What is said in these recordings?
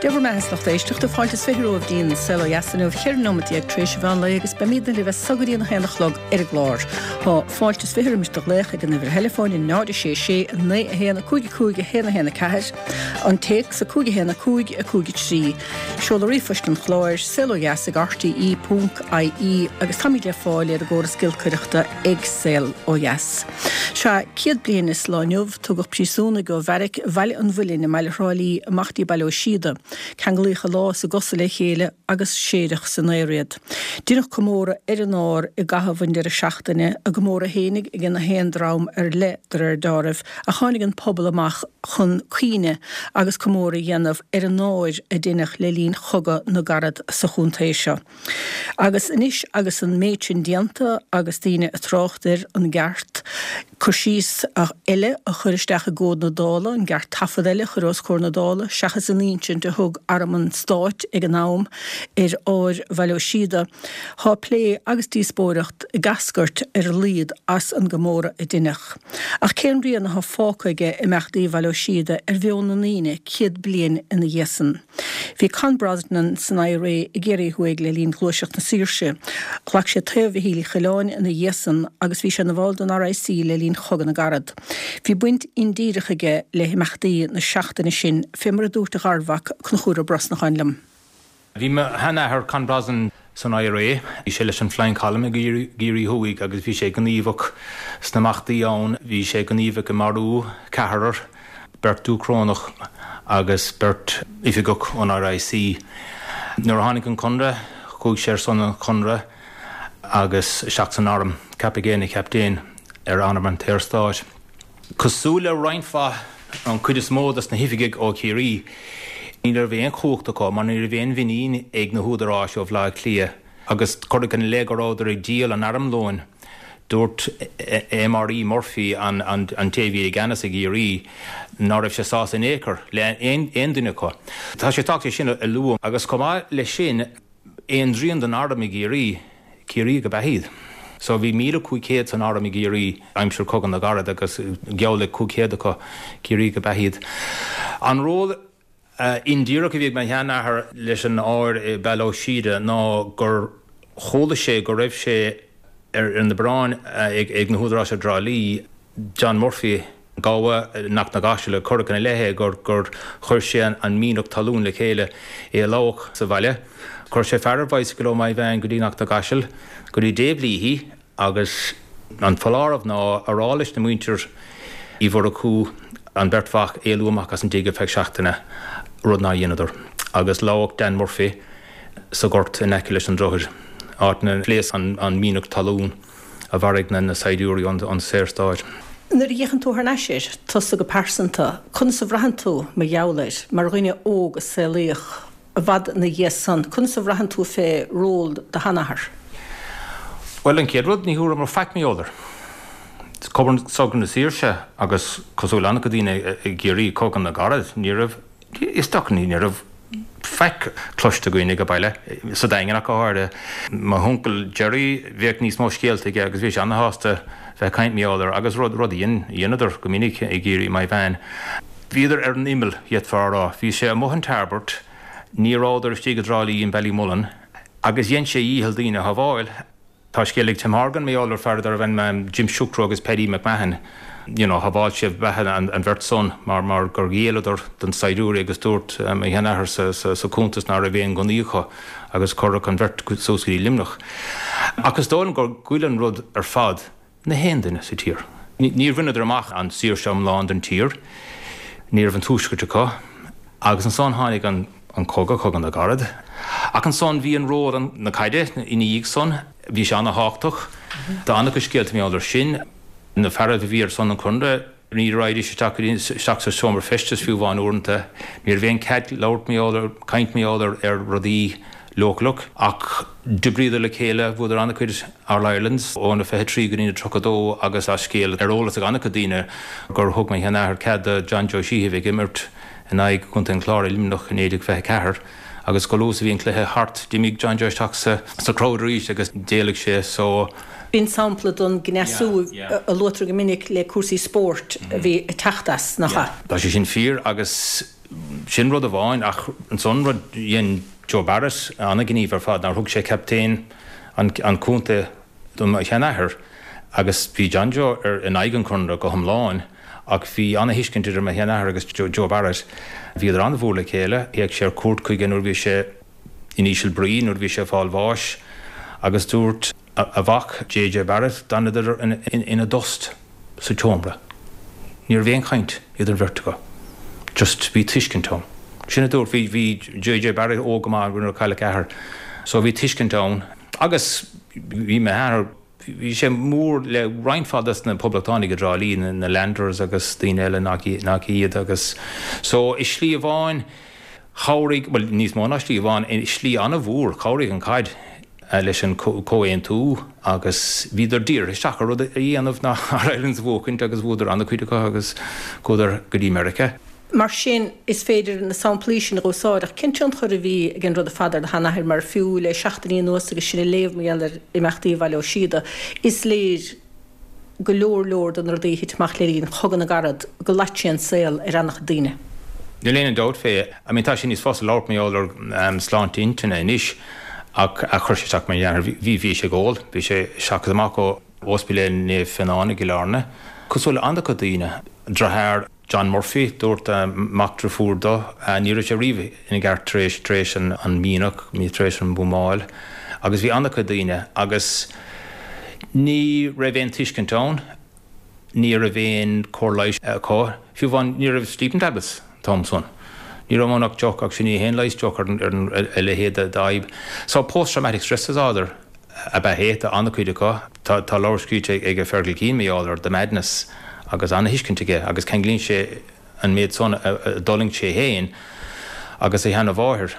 Dé bhur mbeatha a lucht éisteachta, fáilte is 20 romhaibh dtí'n Saol Ó Dheas inniu, 14 nóimeat tar éis an mheán lae agus beimidne libh as so go dtí an 1 a chlog ar an gclár. Tá fáilte is 20 roimis do ghlaoch ag an uimhir theileafóin 0 6 6 9 1 5 5 1 1 4, an téacs 5 1 5 5 3, seoladh ríomhphoist an chláir, saolodheas ag rte ponc ie agus táimid le fáil ar an gcóras giolcaireachta ag Saol Ó Dheas. Sea, 100 bliain is lá inniu, Tugadh príosúnaigh ó bheairic Bhaile an Mhuilinn i mbaile Thrá Lí amach dtí Baile Ó Síoda. Ceanglaíodh a lámha is a gcosa le chéile agus séideadh san aer iad. Deineadh comóradh ar an ár i gcaitheamh an deireadh seachtaine, a gcomóradh fhéinig ag na haon dream ar leith de réir deáraimh, ach tháinig an pobal amach chun cuimhne agus comóradh a dhéanamh ar an ár a deineadh le linn Chogadh na gCarad sa chontae seo. Agus anois agus an méid sin déanta agus daoine ag trácht ar an gceart cur síos eile a chur isteach i gcomhad na Dála, an gceart taifead eile a chur os comhair na Dála seachas an insint a thug Arm an Stáit ag an am ar ár Bhaile Ó Síoda, tá plé agus díospóireacht ag eascairt ar a laghad as an gcomóradh a deineadh. Ach cén rian atá fágtha aige imeachtaí Bhaile Ó Síoda ar mheon na ndaoine 100 bliain ina dhiaidh san? Bhí Con Brosnan san IRA i gCiarraí Thuaidh le linn Ghluaiseacht na Saoirse. Ghlac sé taobh Mhichíl Uí Choileáin ina dhiaidh san agus bhí sé ina bhall den RIC le linn Chogadh na gCarad. Bhí baint indíreach aige le himeachtaí na seachtaine sin, fé mar a dúirt a gharmhac, Conchúr Ó Brosnacháin liom. Bhí mo sheanathair, Con Brosnan, san IRA. Bhí sé leis an Flying Column i gCiarraí Thuaidh agus bhí sé gníomhach sna imeachtaí ann. Bhí sé gníomhach i marú ceathrar, beirt Dúchrónach agus beirt oifigeach ón RIC. Nuair a tháinig an Conradh, chuaigh sé ar son an Chonradh agus isteach san arm. Ceapadh é ina chaptaen ar arm an tSaorstáit. Cosúil le roinnt mhaith, an chuid is mó dos na hoifigigh ó Chiarraí, ní raibh aon chumhacht acu mar ní raibh aon mhuinín ag na húdaráis ó Bhaile Átha Cliath agus cuireadh ina leith go rabhadar ag díol an armlóin. Dúirt MRE Murphy, an té a bhí i gceannas i gCiarraí, ná raibh sé sásta in aon chor le aon duine acu. Tá sé tábhachtach é sin a lua agus chomh maith leis sin, Aon dtrian den arm i gCiarraí, Ciarraíoch ab ea iad. So bhí 1,500 san arm i gCiarraí aimsir Cogadh na gCarad agus geall le 500 acu, Ciarraíoch ab ea iad. An ról indíreach a bhí ag mo sheanathair leis an ár i Baile Ó Síoda ná gur chuala sé go raibh sé ar na bioráin ag na húdaráis i dTrá Lí, John Murphy, gabha i nGort na gCaiseal, cuireadh ina leith é gur chuir sé an mianach talún le chéile, é a lamhach sa bhaile. Chuir sé fear ar bhicycle ó Maigh Mheáin go dtí Gort na gCaiseal, go dtí Dave Leahy agus an foláireamh ná a rá leis na muintir Uí Mhurchú an bheirt mhac éalú amach as an dtigh ar feadh seachtaine, rud nár dheineadar, agus lamhach Dan Murphy sa ghort in aice leis an droichead, áit 'nar phléasc an mianach talún. a mharaigh na saighdiúirí ón Saorstáit. Nuair a fhéachann tú thar n-ais air, tusa go pearsanta, conas a bhraitheann tú mar gheall air, mar dhuine óg a saolaíodh i bhfad ina dhiaidh san, conas a bhraitheann tú fé ról do sheanathar? Bhuel, an chéad rud, ní thabharfadh mé faic mar gheall air. Cogadh na Saoirse agus cosúil le an-chuid daoine i gCiarraí, Cogadh na gCarad, ní raibh Is dócha ní raibh faic cloiste againn ag baile, sa Daingean ach go háirithe. Mo huncail Gerry, bheadh níos mó scéalta aige agus bhí sé ana-shásta bheith ag caint mar gheall air agus rud a dheineadar go minic i gCiarraí, Maigh Mheáin. Bhíodar ar an imeall, d'fhéadfá a rá. Bhí sé amuigh in Tarbert, ní rabhadar istigh i dTrá Lí in Ballymullen agus dhein sé a dhícheall daoine a shábháil. Tá scéal ag Tim Horgan mar gheall ar fear darbh ainm Jim Sucro agus Paddy McMahon, you know, shábháil sé beatha an bheirt san mar mar gur ghéilleadar don saighdiúirí agus dúirt mo sheanathair sa sa cuntas ná raibh aon gunnaí acu agus cuireadh an bheirt suas go dtí Luimneach. Ach is dóigh liom gur ghoill an rud ar fad na haon duine sa tír. Níor bhaineadar amach an saoirse iomlán don tír, ní raibh an tuaisceart acu, agus ansan tháinig an cogadh, Cogadh na gCarad. Ach ansan bhí an ról na caide ina dhiaidh san, bhí sé ana-thábhachtach. Tá an-chuid scéalta mar gheall air sin. Na fearaibh a bhí ar son an Chonradh, Ní raghaidís isteach go dtí isteach sa seomra feistis fiú amháin uaireanta. Ní raibh aon cead labhairt mar gheall ar, caint mar gheall ar, ar rudaí leochaileach. Ach d'oibríodar le chéile, bhuadar an-chuid All Irelands ó na 23 go dtí na 32 agus tá scéal ar eolas ag an-chuid daoine gur thug mo sheanathair cead do John Joe Sheehy a bheith ag imirt in aghaidh Chontae an Chláir i Luimneach i 1924 agus chomh luath is a bhí an cluiche thart d'imigh John Joe isteach sa sa crowd arís agus d'éalaigh sé so B'in sampla den gcneasú a luaitear go minic le cúrsaí spóirt a bhí ag teacht as, nach ea? Tá sé sin fíor agus Sin rud amháin ach ansan rud dhein Joe Barrett an-ghníomh ar fad nár thug sé captaen an chontae do mo sheanathair agus bhí John Joe ar in aghaidh an Chonradh go hiomlán ach bhí an-thuiscint idir mo sheanathair agus Joe Barrett. Bhíodar an-mhór le chéile. Théadh sé ar cuairt chuige nuair a bhí sé in íseal brí, nuair a bhí sé ag fáil bháis agus dúirt a mhac JJ Barrett d'fhanadar ina dtost sa tseomra. Ní raibh aon chaint idir an bheirt acu. Just bhí tuiscint ann. Sin a dúirt, bhí, bhí JJ Barrett óg go maith nuair a cailleadh a athair. So bhí tuiscint ann. Agus bhí m'athair, bhí sé mór le roinnt mhaith des na poblachtánaigh i dTrá Lí, na Landers agus daoine eile nach nach iad agus so i slí amháin chabhraigh, bhuel níos mó ná slí amháin, i slí an-mhór chabhraigh an chaid leis an comhaontú agus bhíodar dírithe isteach ar rud a dhéanamh ná All Irelands a bhuachaint agus bhuadar an-chuid acu agus chuadar go dtí Meiriceá. Mar sin, is féidir na samplaí sin a úsáid, ach cén tionchar a bhí ag an rud ar fad ar do sheanathair? Mar fiú le seachtainí anuas agus sinn ag léamh mar gheall ar imeachtaí Bhaile Ó Síoda, is léir go leor leor de na rudaí a thit amach le linn Chogadh na gCarad go loit sé an saol ar an-chuid daoine. Níl aon dabht fé. I mean tá sé níos fusa labhairt mar gheall ar sláinte intinne anois ach chuir sé isteach ar mo sheanathair. Bhí, bhí sé ag ól, bhí sé isteach is amach ó Ospidéal Naomh Fionán i gCill Airne. Cosúil le an-chuid daoine. Deartháir John Murphy, dúirt mac deirfiúr dó, ní raibh sé riamh ina gceart tar éis, tar éis an mianach, tar éis an bhuamáil agus bhí an-chuid daoine agus ní raibh aon tuiscint ann, ní raibh aon chóir leighis acu, fiú amháin ní raibh sleeping tablets an t-am san. Ní raibh ann ach deoch ach sin ní haon leigheas deoch ar a leithéid d'fhadhb. So post traumatic stress disorder ab ea é do an-chuid acu. Tá leabhar scríte ag Fergal Keane mar gheall ar The Madness agus an-thuiscint aige agus ceanglaíonn sé an méid san a d'fhulaing sé féin agus a sheana-mháthair,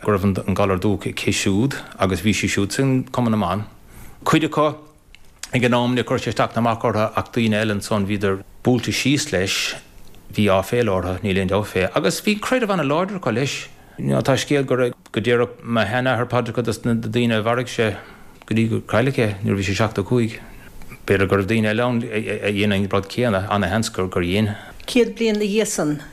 go raibh an galar dubhach aici siúd agus bhí sí siúd san Cumann na mBan. Cuid acu ag an am níor chuir sé isteach ná amach orthu ach daoine eile ansan bhíodar buailte síos leis, bhí áiféala orthu, níl aon dabht fé. Agus bhí creideamh an-láidir acu leis. Tá scéal go raibh, go déarfadh mo sheanathair paidreacha dos na daoine a mharaigh sé go dtí gur cailleadh é nuair a bhí sé 75. B'fhéidir go raibh daoine eile ann a dhein an rud céanna, ana-sheans gur dhein. 100 bliain 'na dhiaidh san,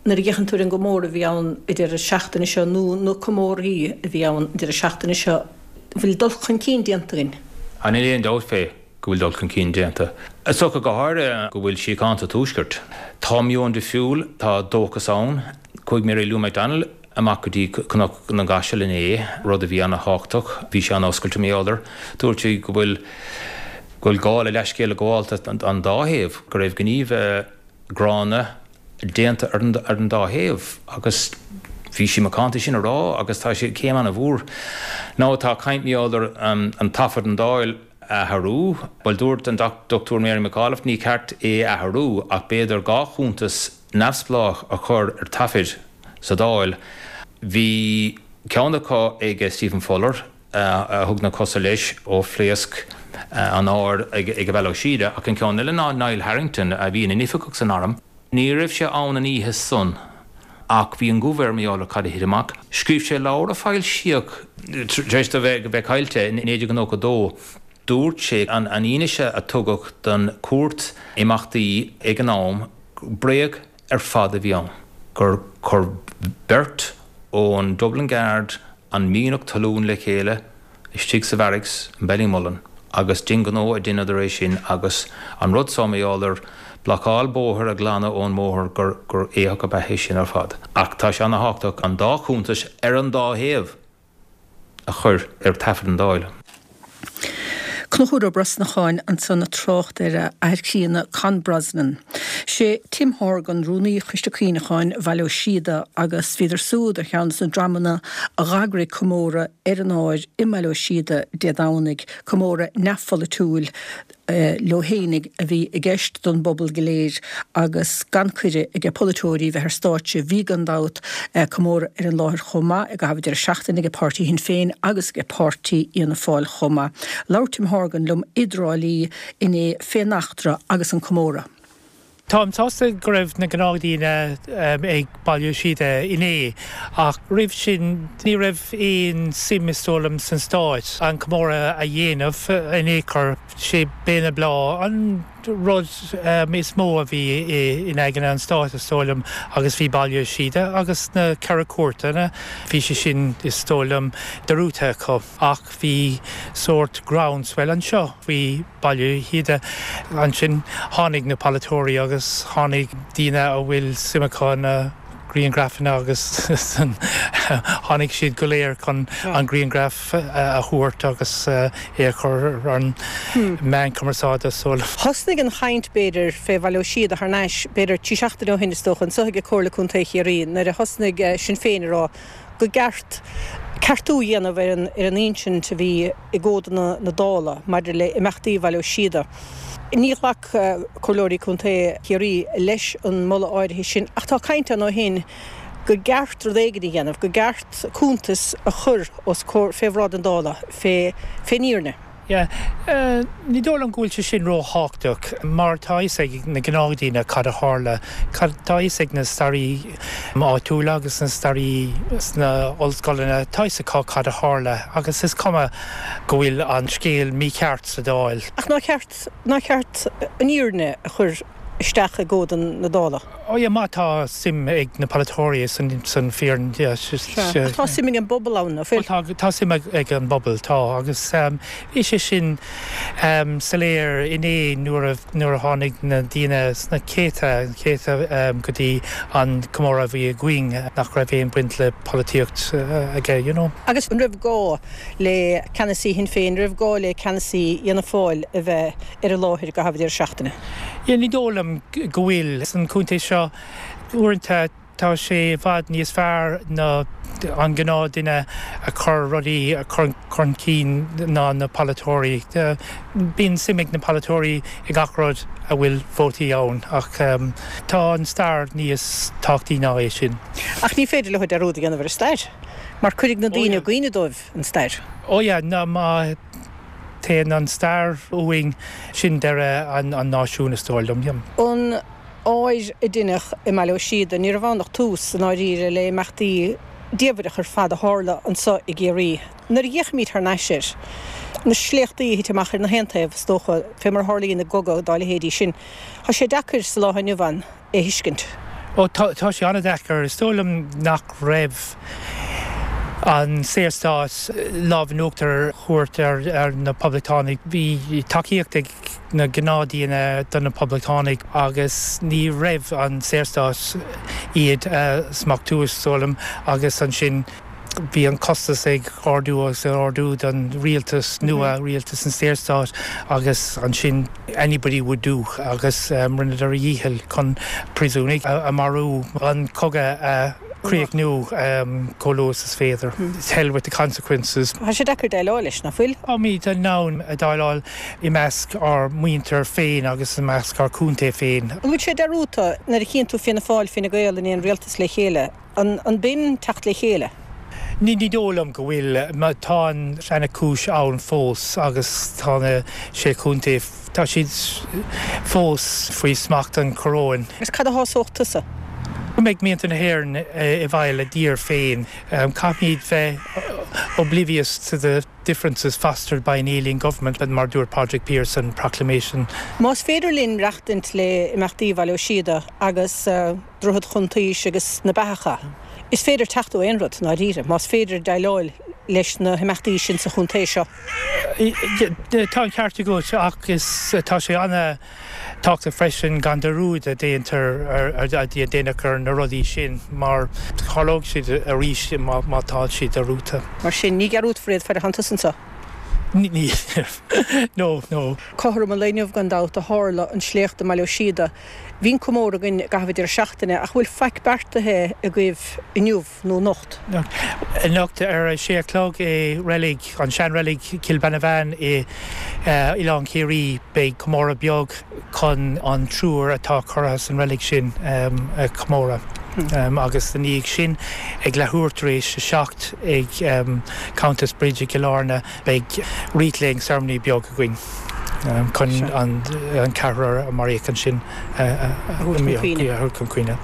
nuair a fhéachann tú ar an gcomóradh a bhí ann an deireadh seachtaine seo, nó na comórthaí a bhí ann an deireadh seachtaine seo, bhfuil dul chun cinn déanta againn? Á níl aon dabht fé. go bhfuil dul chun cinn déanta. Is dócha go háirithe go bhfuil síocháin sa Tuaisceart. Tá meon difriúil, tá dóchas ann. Chuaigh Mary Lou McDonald amach go dtí Cnoc na gCaiseal inné, rud a bhí ana-thábhachtach. Bhí sí an-oscailte mar gheall air. Dúirt sí go bhfuil go bhfuil gá le leithscéal a ghabháil an dá thaobh, go raibh gníomh gránna déanta ar an dá thaobh agus bhí sí macánta sin a rá agus tá sé céim ana-mhór. Now tá caint mar gheall ar an taifead an Dáil a athrú. Bhuel dúirt an Dr Mary McAuliffe ní ceart é a athrú ach b'fhéidir 2 chuntas neamhspleách a chur ar taifead sa Dáil. Bhí ceann acu ag Stephen Fuller a thug na cosa leis ó phléasc an áir ag Baile Ó Síoda ach an ceann eile ná Niall Harrington a bhí ina oifigeach san arm. Ní raibh sé ann an oíche san ach bhí an guth air mar gheall ar cad a thit amach. Scríobh sé leabhar a foilsíodh tar éis dó bheith caillte i 1992. Dúirt sé an fhianaise a tugadh don chúirt imeachtaí ag an am, bréag ar fad a bhí ann, gur chuir beirt ón Dublin Guard an mianach talún le chéile istigh sa bharracks in Ballymullen agus d'aonghnó a dheineadar é sin agus an rud so mar gheall ar blocáil bóthair a ghlanadh ón mbóthar gur gur éitheach ab ea é sin ar fad. Ach tá sé ana-thábhachtach an dá chuntas ar an dá thaobh a chur ar taifead an Dáil. Conchúr Ó Brosnacháin ansan ag trácht ar a athair críonna Con Brosnan. Sé Tim Horgan Rúnaí Choiste Cuimhneacháin Bhaile Ó Síoda agus bhíodar súd ar cheann des na dreamanna a dh'eagraigh comóradh ar an ár i mBaile Ó Síoda Dé Domhnaigh, comóradh neamhpholaitiúil leo fhéinig a bhí i gceist don bpobal go léir agus gan cuireadh age polaiteoirí bheith ar stáitse. Bhí, gan dabht, comóradh ar an láthair chomh maith i gcaitheamh an deireadh seachtaine age páirtí Shinn Féin agus age páirtí Fhianna Fáil chomh maith. Labhair Tim Horgan liom i dTrá Lí inné fén eachtra agus an comóradh. Táim sásta go raibh na gnáthdhaoine ag Baile Ó Síoda inné ach roimh sin ní raibh aon suim is dóigh liom san stáit an comóradh a dhéanamh in aon chor. Sé Béal na Bláth an. rud is mó a bhí in aigne an stáit, is dóigh liom, agus bhí Baile Ó Síoda agus na Ceithre Cúirteanna, bhí sé sin, is dóigh liom, dearúdta acu. Ach bhí sórt groundswell anseo faoi Baile Ó Síoda. Ansin tháinig na polaiteoirí agus tháinig daoine a bhfuil suim acu ina grianghrafanna agus tháinig siad go léir chun an grianghraf a thabhairt agus é a chur ar an meán cumarsáide so. Thosnaigh an chaint, b'fhéidir, fé Bhaile Ó Síoda thar n-ais, b'fhéidir, trí seachtaine ó shin, is dócha, anso ag Comhairle Contae Chiarraí, nuair a thosnaigh Sinn Féin ag rá go gceart ceartú a dhéanamh ar an insint a bhí i gcomhadanna na Dála maidir le imeachtaí Bhaile Ó Síoda. Ní ghlac Comhairleoirí Contae Chiarraí leis an moladh áirithe sin ach tá caint ann ó shin go gceart rud éigin a dhéanamh, go gceart cuntas a chur os comhair, fé bhráid an Dála, fé, fén fhírinne. Yeah. Ní dóigh liom go bhfuil sé sin ró-thábhachtach mar tá a fhios ag na gnáthdhaoine cad a tharla. Tá a fhios ag na staraí áitiúla agus na staraí sna ollscoileanna, tá a fhios acu cad a tharla agus is cuma go bhfuil an scéal mícheart sa Dáil. Ach nár cheart, nár cheart an fhírinne a chur isteach i gcomhad na Dála? Oh yeah, má tá suim ag na polaiteoirí san fhírinne, yeah. Sea, ach tá suim ag an bpobal ann, nach bhfuil? Tá, tá suim ag an bpobal, tá, agus bhí sé sin soiléir inné nuair a, nuair a tháinig na daoine sna céadta, céadta go dtí an comóradh a bhí againn nach raibh aon baint le polaitíocht aige, you know. Agus an raibh gá le ceannasaí Shinn Féin, an raibh gá le ceannasaí Fhianna Fáil a bheith ar an láthair i gcaitheamh an deireadh seachtaine? Yeah, ní dóigh liom go bhfuil. San chontae seo, uaireanta tá sé i bhfad níos fearr ná an gnáth duine a chur rudaí chun cinn ná na polaiteoirí. Bíonn suim ag na polaiteoirí i gach rud a bhfuil vótaí ann ach tá an stair níos tábhachtaí ná é sin. Ach ní féidir leo dearúd a dhéanamh ar an stair mar cuirfidh na daoine i gcuimhne dóibh an stair. Oh yeah, ná má. Téann an stair uainn, sin deireadh an náisiúin, is dóigh liom. An áir a deineadh i mBaile Ó Síoda, ní raibh ann ach tús, i ndáiríre, le imeachtaí diamhaireach ar fad a tharla anso i gCiarraí. Nuair a fhéachaimid thar n-ais air, na sléachtaí a thit amach ar na haon taobh, is dócha, fé mar a tharlaíonn i gcogadh dá leithéidí sin, tá sé deacair sa lá inniu ann é thuiscint. Ó, tá, tá sé an-deacair. Is dóigh liom nach raibh an Saorstát lámh in uachtar a thabhairt ar na Poblachtánaigh. Bhí tacaíocht ag na gnáthdhaoine do na Poblachtánaigh agus ní raibh an Saorstát iad a smachtú, is dóigh liom, agus ansin bhí an costas ag ardú agus ag ardú don rialtas nua, rialtas an Saorstáit, agus ansin anybody would do agus rinneadar a dhícheall chun príosúnaigh a mharú, an cogadh a chríochnú chomh luath is féidir. Hell with the consequences. Tá sé deacair déileáil leis, nach bhfuil? Táimid in ann déileáil i measc ár muintir féin agus i measc ár contae féin. An bhfuil sé dearúdta nuair a chíonn tú Fianna Fáil, Fine Gael in aon rialtas le chéile? An b'in teacht le chéile? Ní dóigh liom go bhfuil. Tá an seana-chúis ann fós agus tá na Sé Chontae, tá siad fós faoi smacht an choróin. Agus cad a shásódh tusa? Go mbeidh muintir na hÉireann i bhfeighil a dtír féin. Caithfimid bheith oblivious to the differences fostered by an alien government, mar a dúirt Pádraig Pearse san Proclamation. Más féidir linn maireachtaint le imeachtaí Bhaile Ó Síoda agus. Droichead Chuntaois agus na Beathacha. Is féidir teacht ó aon rud, i ndáiríre, más féidir déileáil leis na himeachtaí sin sa chontae seo. Tá an ceart agat ach is tá sé an-tábhachtach freisin gan dearúd a déantar a déanamh ar na rudaí sin mar tharlóidh siad arís má tá siad dearúdta. Mar sin, ní dhearúdfar iad fad a thánn tusa anseo. Ní, no, no. Cothrom an lae inniu, gan dabht, a tharla an sléacht i mBaile Ó Síoda. Bhí an comóradh againn i gcaitheamh an deireadh seachtaine, ach bhfuil faic beartaithe agaibh inniu nó anocht? Anocht ar a sé a chlog i reilig, an seanreilig Cill Beanabháin i Oileán Ciarraí, beidh comóradh beag chun an triúr atá curtha san reilig sin a chomóradh. Agus ina dhiaidh sin, ag leathuair tar éis a 7 ag Countess Bridge i gCill Airne, beidh wreath laying ceremony beag againn. Chun an ceathrar a maraíodh ansin a thabhairt chun cuimhne.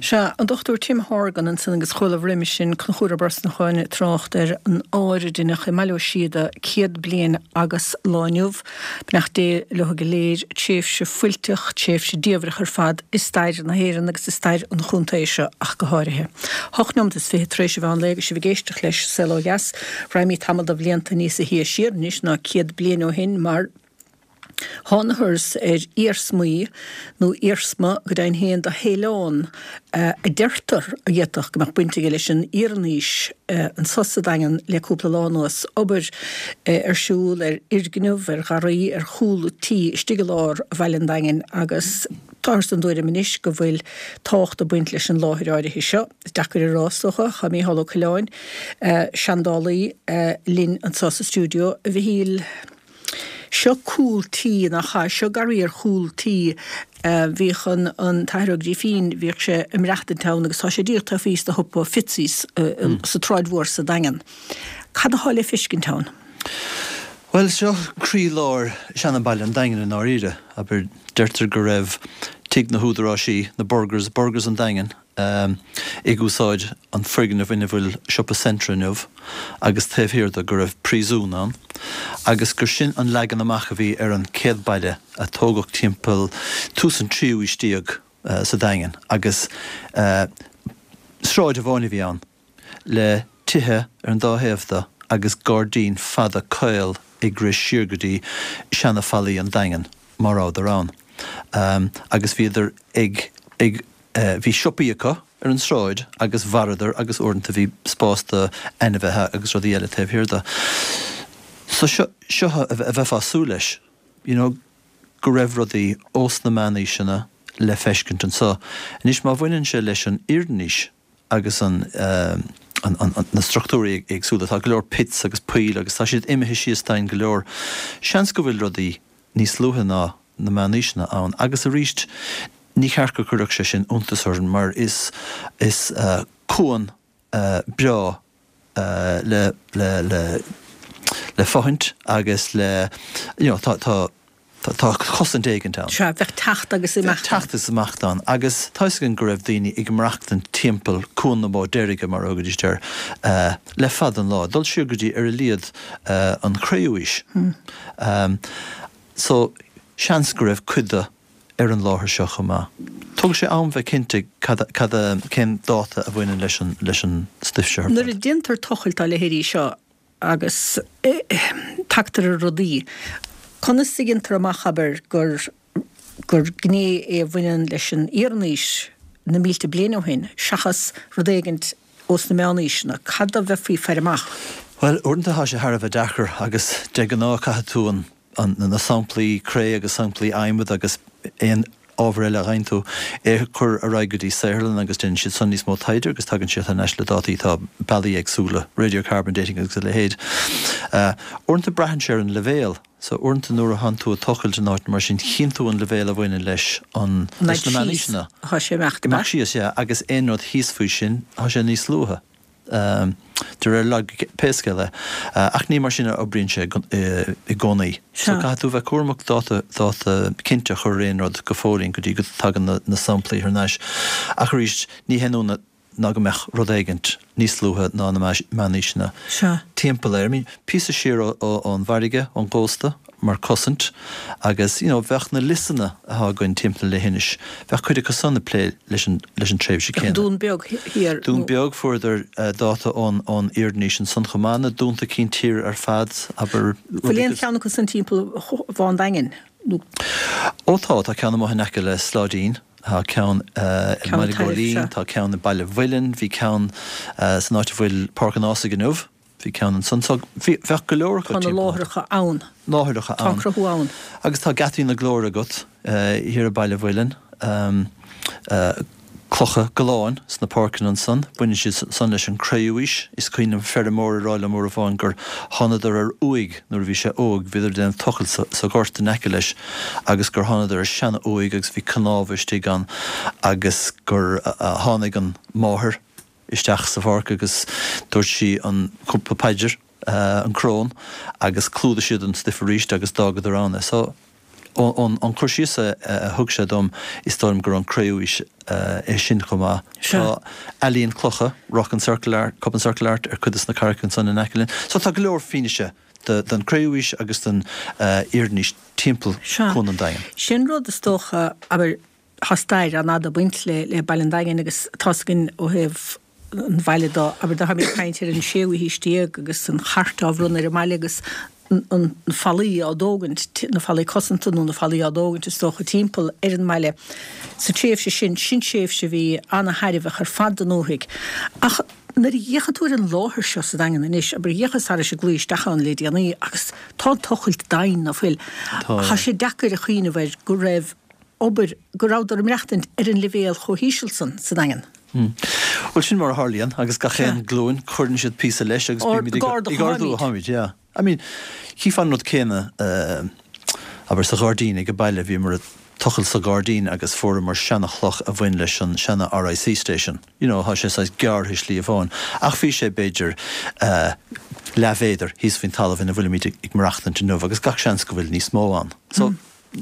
Sea, an Dr Tim Horgan ansan agus chualaibh roimis sin Conchúr Ó Brosnacháin ag trácht ar an áir a deineadh i mBaile Ó Síoda 100 bliain agus lá inniu. Beannacht Dé leo go léir. Tréimhse fuilteach, tréimhse diamhrach ar fad i stair na hÉireann agus i stair an chontae seo ach go háirithe. Hocht neomat is 20 tar éis an mheán lae agus sibh ag éisteacht leis Saol Ó Dheas. Raghaimid tamall de bhlianta níosa shia siar anois ná 100 bliain ó shin mar thángathas ar iarsmaí, nó iarsma go deimhin féin, de shaileán a deirtear a d'fhéadfadh go mbeadh baint aige leis an Iarannaois anso sa Daingean le cúpla lá anuas. Obair ar siúl ar fhoirgneamh, ar gharraí, ar chúl tí istigh i lár bhaile an Daingin agus táthar den dtuairim anois go bhfuil tábhacht ag baint leis an láthair áirithe seo. Is deacair a rá, is dócha. Tá Mícheál Ó Coileáin, seandálaí, linn anso sa stiúideo. A Mhichíl, seo cúl tí, nach ea? Seo garraí ar chúl tí. Bhíodh an an tAthair Ó Grífín, bhíodh sé ag maireachtaint ann agus tá sé díreach taobh thíos de shiopa Fitzy's sa tSráid Mhór sa Daingean. Cad atá le feiscint ann? Bhuel, seo croí-lár seana-bhaile an Daingin i ndáiríre. Abair, deirtear go raibh tigh na húdaráisí, na Burgers, Burgers an Daingin, ag úsáid an foirgneamh ina bhfuil siopa Centra inniu agus taobh thiar de go raibh príosún ann agus gur sin an leagan amach a bhí ar an chéad baile a tógadh timpeall tús an tríú aois déag sa Daingean agus sráid amháin a bhí ann le tithe ar an dá thaobh de agus gairdín fada caol ag rith siar go dtí seana-fhallaí an Daingin, má rabhadar ann. Agus bhíodar ag, ag, bhí siopaí acu ar an sráid agus mhaireadar agus uaireanta bhí spás do ainmhithe agus rudaí eile taobh thiar de. So seo, seo a bheifeá ag súil leis, you know, go raibh rudaí ós na meánaoiseanna le feiscint anso. Anois má bhaineann sé leis an Iarannaois, agus an na struchtúirí éagsúla. Tá go leor pits agus poill agus tá siad imithe síos domhain go leor. Seans go bhfuil rudaí níos luaithe ná na meánaoiseanna ann agus arís ní cheart go gcuirfeadh sé sin iontas orainn mar is is cuan breá le le le le fothaint agus le you know tá tá tá cosaint éigint ann. Sea, bheadh teacht agus imeacht ann. Bheadh teacht is imeacht ann agus tá 'fhios againn go raibh daoine ag maireachtaint timpeall Cuan na Bó Deirge, mar a thugaidís air, le fada an lá, dul siar go dtí ar a laghad an Chré-Umhaois. So, seans go raibh cuid de ar an láthair seo chomh maith. Tógfaidh sé am bheith cinnte cad, cad, cén dáta a bhaineann leis an, leis an stuif seo ar fad. Nuair a déantar tochailt dá leithéidí seo, agus tagtar ar rudaí. Conas a dhéantar amach, abair, gur gur gné é a bhaineann leis an Iarannaois na mílte bliain ó shin, seachas rud éigint ós na Meánaoiseanna? Cad a bheifí ag faire amach? Bhuel, uaireanta tá sé thar a bheith deacair agus de ghnáth caithfidh tú an na samplaí cré agus samplaí adhmaid agus aon ábhar eile a fhaigheann tú, é a chur ar aghaidh go dtí saotharlann agus déanann siad san níos mó taighde agus tagann siad thar n-ais le dátaí, tá bealaí éagsúla, radiocarbon dating agus a leithéid. Uaireanta braitheann sé ar an leibhéal, so uaireanta nuair a thánn tú ag tochailt in áit mar sin chíonn tú an leibhéal a bhaineann leis an, leis na meánaoiseanna. Tá sé ag imeacht síos, yeah, agus aon rud thíos faoi sin, tá sé níos luaithe. De réir loighice, pé scéal é. Ach ní mar sin a oibríonn sé i gcónaí. So caithfidh tú bheith cúramach dáta, dáta cinnte a chur ar aon rud go fóillín go dtí go dtagann na samplaí thar n-ais. Ach arís, ní haon ionadh ná go mbeadh rud éigint níos luaithe ná na meánaoiseanna timpeall air. I mean, píosa siar ón bhfarraige, ón gcósta. mar cosaint agus you know bheadh na liosanna atá againn timpeall na leithinise, bheadh cuid acu san ag plé leis an leis an tréimhse céanna. Dún Beag thiar. Dún Beag, fuaireadar dáta ón ón Iarannaois ansan chomh maith, na dúnta cinn tíre ar fad, abair, Bhfuil aon cheann acu san timpeall Bhá an Daingin nó? Ó tá, tá ceann amuigh in aice le Sláidín, tá ceann i mBaile Góilín, tá ceann i Baile Mhuilinn, bhí ceann san áit a bhfuil Páirc an Ághasaigh inniu. Bhí ceann ansan. So, bhí, bheadh go leor acu Tá na timpeall. láithreacha ann. Láithreacha Tá an ann. cruthú ann. Agus tá Geataí na Glóire agat thiar i Baile Mhuilinn. Clocha galláin sna páirceanna ansan. Baineann siad san leis an Cré-Umhaois. Is cuimhin liom feirmeoir ag rá liom uair amháin gur thánadar ar uaigh nuair a bhí sé óg, bhíodar ag déanamh tochailt sa, sa ghort in aice leis agus gur thánadar ar seana-uaigh agus bhí cnámha istigh ann agus gur tháinig an mháthair isteach sa pháirc agus dúirt sí an cúpla paidir. an crón, agus chlúdaigh siad an stuif arís agus d'fhágadar ann é. So, ón cur síos a thug sé dom, is dóigh liom gur ón Cré-Umhaois é sin chomh maith. Tá ealaín clocha, rock and circle art, cup and circle art, ar cuid de na carraigeacha ansan in aice linn. So tá go leor fianaise den Cré-Umhaois agus den Iarannaois timpeall Cuan an Daingin. Sin rud is dócha, abair, tá stair an-fhada ag baint le Baile an Daingin agus tá's againn ó thaobh an bhaile de, abair dá mbeifí ag caint ar an séú haois déag agus an chairt á bhronnadh ar an mbaile agus na fallaí á dtógaint, na fallaí cosanta nó na fallaí á dtógaint is dócha timpeall ar an mbaile sa tréimhse sin, sin tréimhse a bhí ana-thairbheach ar fad don ndúthaigh. Ach nuair a fhéachann tú ar an láthair seo sa Daingean anois, abair d'fhéachas thairis an gclaí isteach ann le déanaí agus tá an tochailt doimhin ná fuil. Tá sé deacair a chuimhneamh air go raibh obair, go rabhadar ag maireachtaint ar an leibhéal chomh híseal san sa Daingean. Bhuel, sin mar a tharlaíonn, agus gach aon glúin, cuireann siad píosa leis agus bímid ag ardú, tháimid, yeah. I mean, chífeá an rud céanna, abair, sa ghairdín ag an baile, bhíomar ag tochailt sa ghairdín agus fuaireamar seana-chloch a bhain leis an seana RIC station, you know, tá sé saghas gearrtha i slí amháin, ach bhí sé b'fhéidir leathmhéadar thíos faoin talamh ina bhfuilimid ag maireachtaint inniu agus gach seans go bhfuil níos mó ann. So,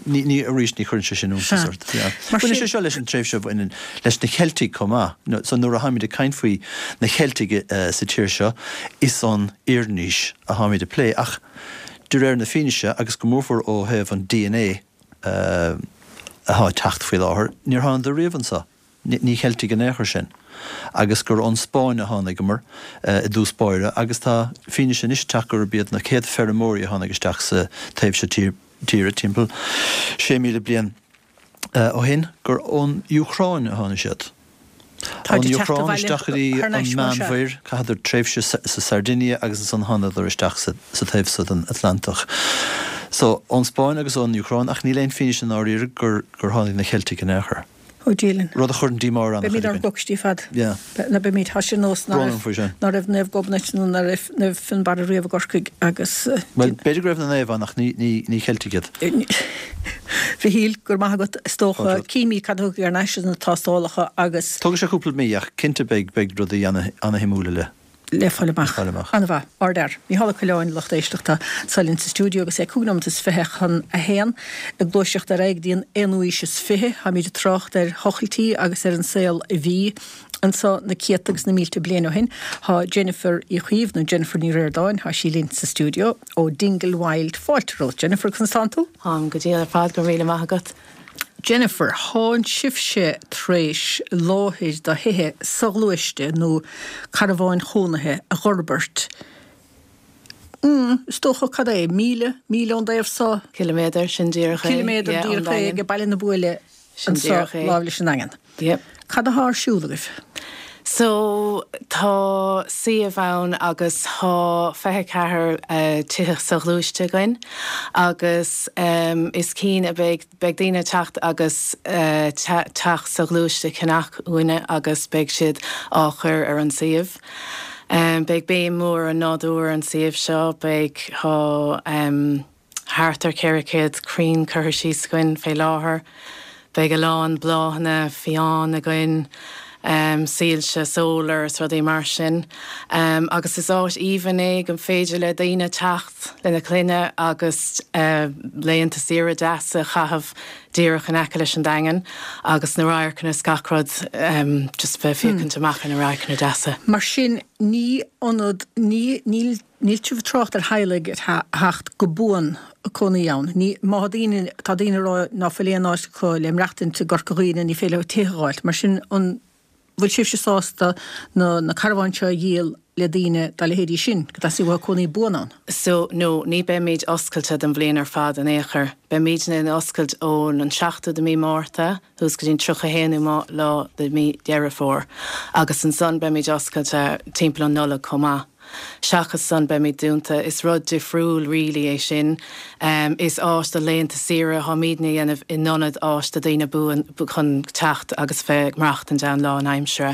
Ní, ní, arís, ní chuireann sé sin iontas ort. Yeah. Baineann sé seo leis an tréimhse a bhaineann leis na Ceiltigh chomh maith. So nuair a tháimid ag caint faoi na Ceiltigh sa tír seo, is ón Iarannaois a tháimid ag plé. Ach de réir na fianaise, agus go mórmhór ó thaobh an dna atá ag teacht faoi láthair, níor thánadar riamh anseo. Ní Cheiltigh in aon chor sinn. Agus gur ón Spáinn a tháinigeamar i dtús báire, agus tá fianaise anois ag teacht gurb iad na chéad feirmeoirí a tháinig isteach sa taobh seo tíre timpeall 6,000 bliain ó shin, gur ón Úcráin a tháinig siad. Ón Úcráin isteach go dtí an Meánmhuir, chaitheadar tréimhse sa Sardinia agus ansan thánadar isteach sa taobh so den Atlantach. So, ón Spáinn agus ón Úcráin, ach níl aon fianaise i ndáiríre gur tháinig na Ceiltigh in aon chor. Ó Dia linn. Rud a chuireann díomá ar an-chuid Beimid ár gcoicistí fad. Yeah. Ná beimid, tá sé ar nós ná Brón orm faoi sin. ná raibh Naomh Gobnait nó ná raibh Naomh Fionnbarra riamh i gCorcaigh agus. Bhuel, b'fhéidir go raibh na naoimh ann ach ní, ní, ní Ceiltigh iad. Mhichíl, go raibh maith agat. Is dócha, címid cad a thiocfaidh thar n-ais as na tástálacha agus. Tógfaidh sé cúpla mí ach cinnte beidh, beidh rudaí ana, ana-shuimiúla le. le fáil amach. An-mhaith. Ardfhear. Mícheál Ó Coileáin, lucht éisteachta, anseo linn sa stiúideo agus é 25 nóimeat chun a haon. Ag gluaiseacht ar aghaidh go dtí an aonú haois is fiche, táimid ag trácht ar thochailtí agus ar an saol a bhí anseo na céadta agus na mílte bliain ó shin. Tá Jennifer Uí Chaoimh, nó Jennifer Ní Ríordáin, tá sí linn sa stiúideo ó Dingle Wild. Fáilte romhat, Jennifer, conas tánn tú? Táim go diail ar fad, go raibh míle maith agat. Jennifer, Thánn sibhse tar éis láthair do thithe soghluaiste nó carbháin chónaithe a dh'fhorbairt, mm, is dócha, cad é, míle, míle ón dtaobh so? Ciliméadar, sin díreach é, Ciliméadar yeah, ón díreach é Daingean. ag Baile na Buaile Sin anso díreach é. láimh leis an nDaingean. Yep. Cad athá ar siúl agaibh? So, tá suíomh ann agus tá 24 tithe soghluaiste againn agus is cinn a beidh, beidh daoine ag teacht agus teach soghluaiste a cheannach uainne agus beidh siad á chur ar an suíomh. Beidh béim mhór ar an nádúr ar an suíomh seo, beidh, tá. Thart ar 400 crainn curtha síos againn fé láthair. Beidh a lán bláthanna fiáin againn, soilse solar is rudaí mar sin. Agus is áit aoibhinn é go féidir le daoine teacht lena clainne agus laethanta saoire deasa a chaitheamh díreach in aice leis an Daingean agus na radharcanna is gach rud, just bheith ag féachaint amach ar na radharcanna deasa. Mar sin ní ionad, ní, níl Níl sibh ag trácht ar theaghlaigh a theacht go buan ag cónaí ann. Ní, má tá daoine, tá daoine ag rá ná fuil aon áit acu le maireachtaint i gCorca Dhuibhne, ní féidir leo tithe a dh'fháilt. Mar sin, an bhfuil sibhse sásta na, na carbháin seo a dhíol le daoine dá leithéidí sin, go dteastaíonn uathu cónaí buan ann? So, no, ní beimid oscailte don bhliain ar fad in aon chor. Beimidne in oscailt ón an 7ú de mí Márta suas go dtí an 31ú lá de mí Dheireadh Fómhair agus ansan beimid oscailte timpeall an Nollaig chomh maith. Seachas san beimid dúnta. Is rud difriúil really é sin. Is áit do laethanta saoire atáimidne a dhéanamh in ionad áit do daoine buan chun teacht agus bheith ag maireachtaint ann lá an aimsire.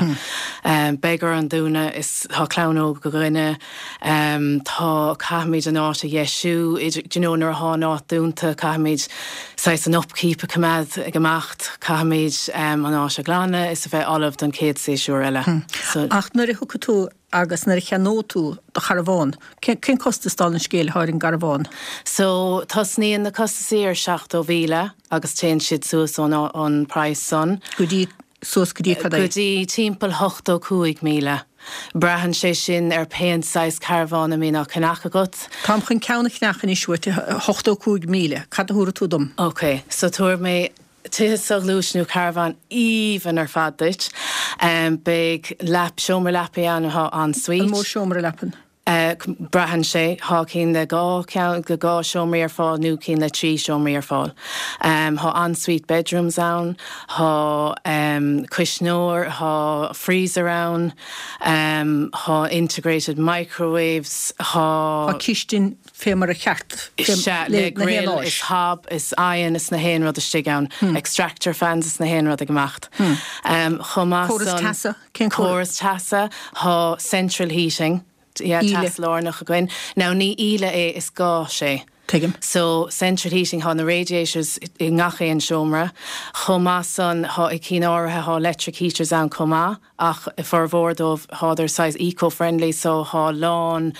Beidh orainn dúnadh, is tá clann óg againne, tá, caithfimid an áit a dheisiú, idir, do you know nuair atá an áit dúnta caithfimid. saghas an upkeep a choimeád ag imeacht, caithfimid an áit a ghlanadh is a bheith ullamh don chéad séasúr eile. So. Ach nuair a thiocfaidh tú agus nuair a cheannóidh tú do charbhán, cén costas dála an scéil atá ar an gcarbhán? So, tosnaíonn na costasaí ar 70,000 agus téann siad suas ón an praghas san. Go dtí Suas go dtí cad é? Go dtí timpeall 85,000. Braitheann sé sin ar pén saghas carbhán a mbíonn á ceannach agat. Táim chun ceann a cheannach anois uait, 85,000. Cad a thabharfaidh tú dom? Ok, so tabharfaidh mé tithe soghluaiste nó carbhán aoibhinn ar fad duit. Beidh leap, seomra leapaí ann atá en-suite. An mó seomra leapan? Braitheann sé. Thá cinn le dhá cheann, le dhá seomraí ar fáil nó cinn le trí seomraí ar fáil. Thá en-suite bedrooms ann, thá cuisneoir, thá freezer ann, thá integrated microwaves, thá. Thá cistin fé mar a cheart Sea, le grill is hob is oigheann is na haon rud istigh ann. Extractor fans is na haon rud ag imeacht. Chomh maith san. Córas teasa? Cén córas teasa? Thá central heating, yeah, teas lárnach againn. Now ní íle é, is gás é. Tuigim. So central heating, thá na radiators i ngach aon seomra. Chomh maith san, thá i cinn áirithe, thá electric heaters ann chomh maith, ach i formhór dóibh, thádar saghas eco-friendly, so thá lán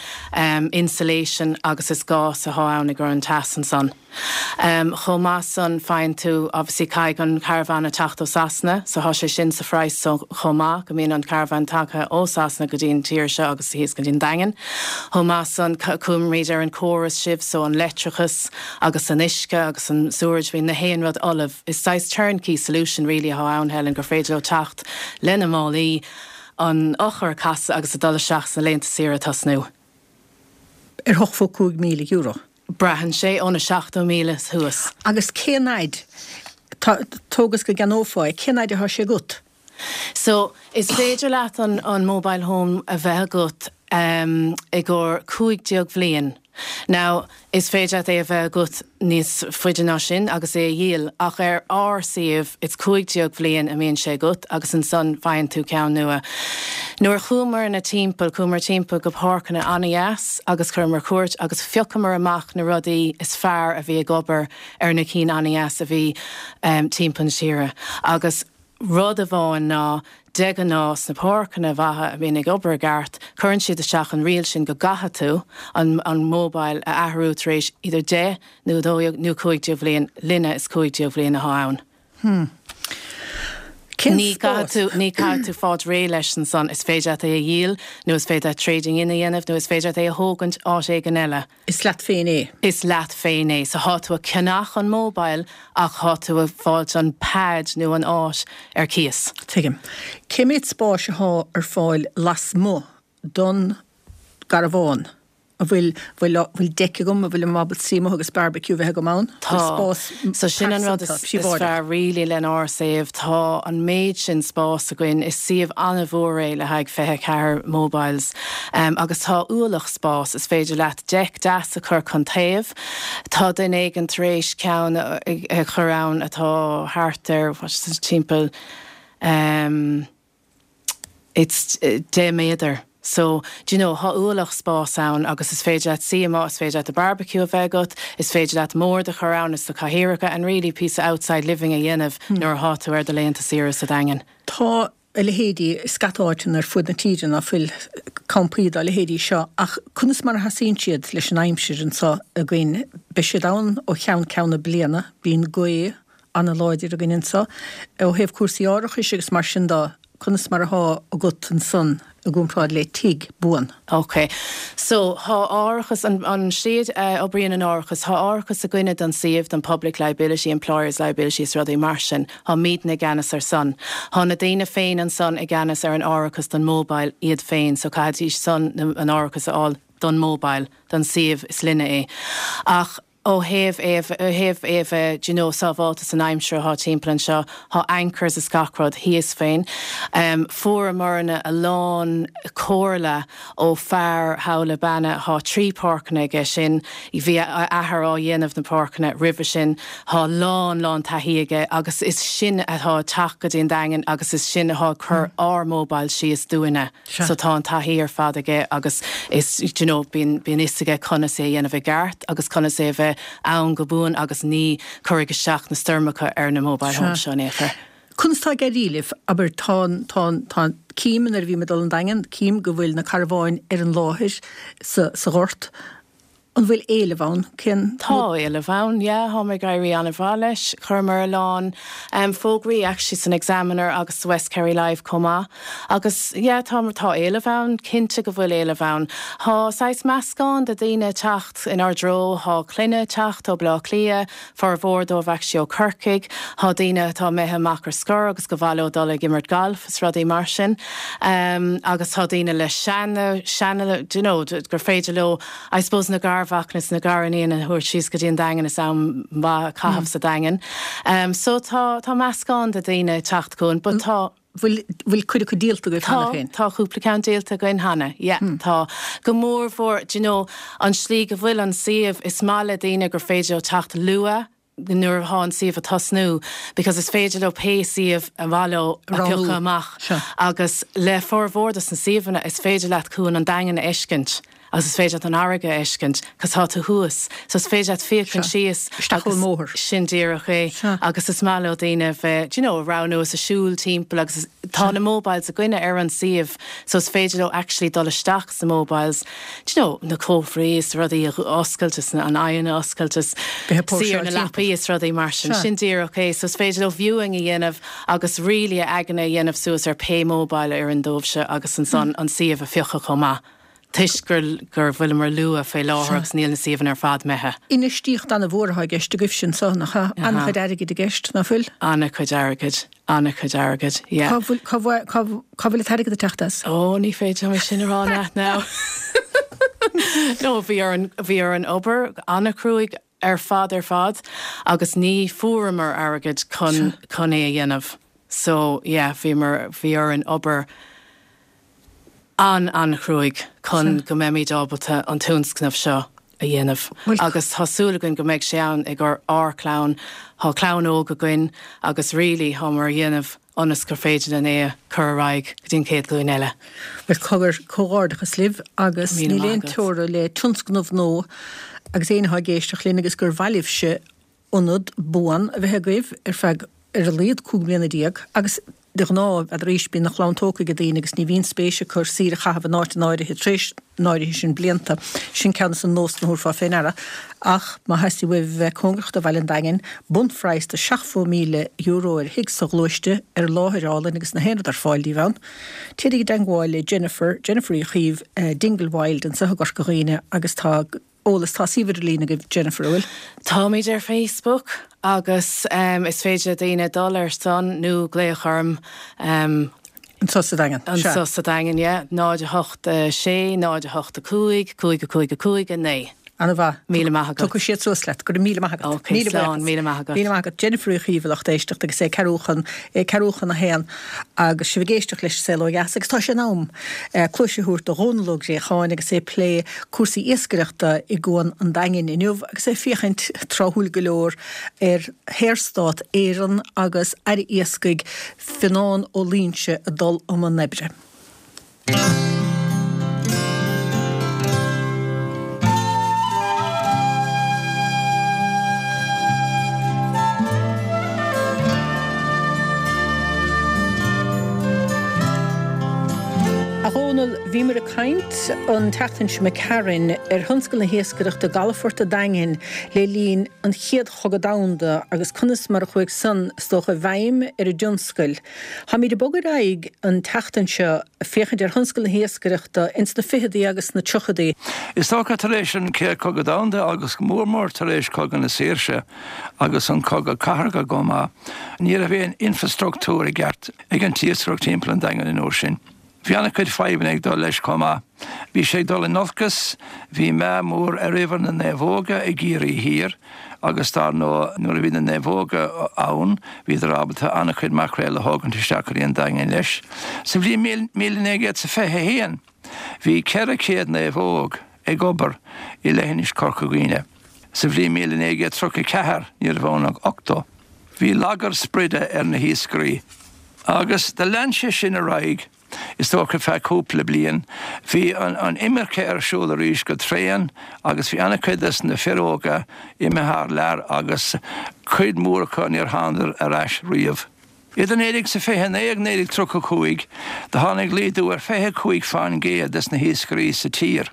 insulation agus is gás athá ann i gcur an teas ansan. Chomh maith san, faigheann tú, obviously caithfidh an carbhán a teacht ó Sasana, so thá sé sin sa phraghas so chomh maith, go mbíonn an carbhán tagtha ó Sasana go dtí an tír seo agus thíos go dtí an Daingean. Chomh maith san, cuirimid ar an córas sibh, so an leictreachas agus an uisce agus an sewerage, bíonn na haon rud ullamh. Is saghas turnkey solution really athá ann, Helen, gur féidir leo teacht lena málaí, an eochair a casadh agus a dul isteach sna laethanta saoire a tosnú. Ar €85,000. Braitheann sé ó na 70,000 thuas. Agus cén fhaid, tóg is go gceannófá é, cén fhaid atá sé agat? So, is féidir leat an an mobile home a bheith agat i gcomhair 15 bhliain. Now, is féidir leat é a bheith agat níos faide ná sin agus é a dhíol, ach ar ár suíomh, it's 15 bhliain a mbíonn sé agat agus ansan faigheann tú ceann nua. Nuair a chuamarna timpeall, chuamar timpeall go páirceanna an-dheas agus chuireamar cuairt agus phiocamar amach na rudaí is fearr a bhí ag obair ar na cinn an-dheas a bhí timpeall na tíre. Agus rud amháin ná, de ghnáth sna páirceanna mhaithe a bhíonn ag obair i gceart, cuireann siad isteach an riail sin go gcaithfidh tú an an mobile a athrú tar éis idir 10 nó 12 nó 15 bhliain, linne is 15 bhliain athá ann. Hmm. Cén Ní spás? caithfidh tú, ní caithfidh tú fáilt réidh leis ansan. Is féidir leat é a dhíol, nó is féidir leat trading in a dhéanamh, nó is féidir leat é a thógaint áit éigin eile. Is leat féin é. Is leat féin é. So thá tú a ceannach an mobile ach thá tú a fáilt an pad nó an áit ar cíos. Tuigim. Cé mhéad spáis athá ar fáil lasmuigh don gcarbhán? An bhfuil, bhfuil, bhfuil deic agam, an bhfuil mé ábalta suí amuigh agus barbecue a bheith agam ann? Tá. Spás So sin an rud is, is fearr really lenár suíomh. Tá an méid sin spás againn. Is suíomh an-mhór é le haghaidh 24 mobiles. Agus tá ualach spás. Is féidir leat deic deas a chur chun taobh. Tá duine éigin tar éis ceann a chur ann atá thart ar, what is it, timpeall, It's 10 méadar. So, do you know, thá ualach spás ann agus is féidir leat suí amuigh, is féidir leat do barbecue a bheith agat, is féidir leat mbord a chur ann is do cathaoireacha and really píosa outside living a dhéanamh nuair athá tú ar do laethanta saoire sa Daingean. Tá a leithéidí i scata áiteanna ar fud na tíre ná fuil campaí dá leithéidí seo ach conas mar a sheasaíonn siad leis an aimsir anseo againn? Beidh siad ann ó cheann ceann na bliana, bíonn gaoth, ana-láidir againn anseo. Ó thaobh cúrsaí árachais agus mar sin de, conas mar athá agat ansan i gcomparáid le tigh buan? Ok. So, thá árachas, an, an slí a oibríonn an árachas, thá árachas againne don suíomh, don public liability, employers liability is rudaí mar sin. Thá mídne i gceannas ar san. Thá na daoine féin ansan i gceannas ar an árachas don mobile iad féin, so caithfidís san an árachas a fháil don mobile, don suíomh, is linne é. Ach. Ó thaobh é, ó thaobh é a bheith, do you know, sábháilte san aimsir athá timpeall anseo, thá anchors is gach rud thíos féin. Fuaireamarna a lán comhairle ó fear thall i Beanna, thá 3 páirceanna aige sin, bhí a athair á dhéanamh na páirceanna roimhe sin, thá lán, lán taithí aige agus is sin athá ag teacht go dtí an Daingean agus is sin athá ag cur ár mobiles síos dúinne. So tá an taithí ar fad aige agus is, do you know, bíonn, bíonn fhios aige conas é a dhéanamh i gceart agus conas é a bheith. ann go buan agus ní cuirfidh isteach na stoirmeacha ar na mobile homes seo in aon chor. Conas tá ag éirí libh? Abair, tá an, tá an, tá an, cím nuair a bhím ag dul an Daingean, cím go bhfuil na carbháin ar an láthair sa, sa ghort. An bhfuil éileamh ann? Cén. Tá éileamh ann, yeah, táimid ag éirí an-mhaith leis. Chuireamar a lán fógraí actually san Examiner agus sa West Kerry Live chomh maith. Agus yeah, tá, tá éileamh ann, cinnte go bhfuil éileamh ann. Tá saghas meascán de daoine ag teacht inár dtreo, tá clainne ag teacht ó Bleá Cliath, formhór dóibh actually ó Corcaigh, tá daoine atá imithe amach ar scor agus gur mhaith leo dul ag imirt gailf is rudaí mar sin. Agus tá daoine le seana, seana, do you know, gur féidir leo, I suppose na garmhacanna is na gariníon a thabhairt síos go dtí an Daingean is am maith a chaitheamh sa Daingean. So tá, tá meascán de daoine ag teacht chugainn but tá. Bhfuil, bhfuil cuid acu díolta agaibh cheana féin? Tá, tá cúpla ceann díolta againn cheana, yeah, tá. Go mór mhór, do you know, an slí go bhfuil an suíomh, is maith le daoine gur féidir leo teacht luath, nuair atá an suíomh ag tosnú because is féidir leo pé suíomh a mhaith leo a phiocadh amach agus le formhór dos na suíomhanna is féidir leat cuan an Daingin a fheiscint agus is féidir leat an fharraige a fheiscint cos tá tú thuas so is féidir leat féachaint síos agus sin díreach é agus is maith leo daoine bheith do you know a roghnú is a siúl timpeall agus tá na mobiles againne ar an suíomh so is féidir leo actually dul isteach sna mobiles do you know, na cófraí is rudaí a oscailt is an oigheann a oscailt is suí ar na leapaí is rudaí mar sin. Sin díreach é. So is féidir leo viewing a dhéanamh agus really a aigne a dhéanamh suas ar pé mobile a oireann dóibhse agus ansan an suíomh a phiocadh chomh maith toisc gur gur bhfuileamar luath fé láthair agus níl na suíomhanna ar fad imithe. Infheistíocht an-mhór atá i gceist agaibhse anso, nach ea? An-chuid airgid i gceist, ná fuil? An-chuid airgid. An-chuid airgid, yeah. Cá bhfuil, cá bhfuil, cá, cá bhfuil an t-airgead ag teacht as? Ó, ní féidir liom é sin a rá leat now. No, bhí orainn, bhí orainn obair an-chruaidh ar fad ar fad agus ní fuaireamar airgead chun, chun é a dhéanamh. So, yeah, bhíomar, bhí orainn obair an-an-chruaidh chun go mbeimid ábalta an tionscnamh seo a dhéanamh agus tá súil againn go mbeidh sé ann ag ár clann. Tá clann óg againn agus really táimid á dhéanamh ionas gur féidir linn é a chur ar aghaidh go dtí an chéad ghlúin eile. Bhuel, cogar, comhghairdeachas libh agus níl aon teora le tionscnamh nua agus éinne atá ag éisteacht linn agus gur mhaith libhse ionad buan a bheith agaibh ar feadh ar a laghad 15 mbliana agus de ghnáth, n'fheadar aois, bíonn a chlann tógtha ag daoine agus ní bhíonn spéis acu saoire a chaitheamh in áit an áirithe tar éis an áirithe sin blianta. Sin ceann de na nósanna a thabharfá fé ndeara. Ach má theastaíonn uaibh a bheith cóngarach do bhaile an Daingin, bunphraghas de €70,000 ar thigh sa ghluaiste, ar láthair álainn agus na haon rud ar fáil daoibh ann. Téirigí i dteangmháil le Jennifer, Jennifer Uí Chaoimh, Dingle Wild anseo i gCorca Dhuibhne agus tá. eolas. Tá suíomh idirlín agaibh Jennifer, an bhfuil? Táimid ar Facebook agus is féidir le daoine dul ar san nó glaoch orm. Anseo sa Daingean, sea. Anseo sa Daingean, yeah. 0 8 6 0 8 5 5 5 5 9. Ana-mhaith. Míle maith agat. Tiocfaidh siad suas leat. Go raibh míle maith agat. Ok, slán. Míle maith agat. Míle maith agat. Jennifer Uí Chaoimh, a lucht éisteachta agus é ceathrú chun, é ceathrú chun a haon agus sibh ag éisteacht leis an Saol Ó Dheas agus tá sé in am cluais a thabhairt do Dhónal Ó Gréacháin agus é ag plé cúrsaí iascaireachta i gCuan an Daingin inniu agus é ag féachaint, tráthúil go leor, ar Shaorstát Éireann agus Aire Iascaigh Fionán Ó Loingsigh ag dul i mbun oibre. A Dhónaill, bhíomar ag caint an tseachtain seo imigh tharainn ar thionscal na hiascaireachta i gcalafort an Daingin le linn an Chéad Chogadh Domhanda agus conas mar a chuaigh san, is dócha, i bhfeidhm ar an dtionscal. Táimid ag bogadh ar aghaidh an tseachtain seo ag féachaint ar thionscal na hiascaireachta ins na ficheadaí agus sna tríochadaí. Is dócha tar éis an Chéad Chogadh Domhanda agus go mór mór tar éis Cogadh na Saoirse agus an Cogadh Cathartha chomh maith, ní raibh aon infrastruchtúr i gceart ag an t-iascaireacht timpeall an Daingin an uair sin. Bhí an-chuid fadhbanna ag dul leis chomh maith. Bhí sé ag dul in olcas, bhí meath mór ar uimhir na naomhóga i gCiarraí Thiar agus dar ndóigh nuair a bhí na naomhóga ann bhíodar ábalta an-chuid maicréal a thógaint isteach go dtí an Daingean leis. Sa bhliain 1921 bhí 400 naomhóg ag obair i leithinis Chorca Dhuibhne. Sa bhliain 1934 ní raibh ann ach 80. Bhí lagar spride ar na hiascairí agus do lean sé sin ar aghaidh. Is dócha feadh cúpla bliain. Bhí an imirce ar siúl arís go tréan agus bhí an-chuid des na fir óga imithe thar lear agus cuid mhór acu níor thánadar ar ais riamh. Idir 1929 agus 1935 do tháinig laghdú ar 25 fán gcéad des na hiascairí sa tír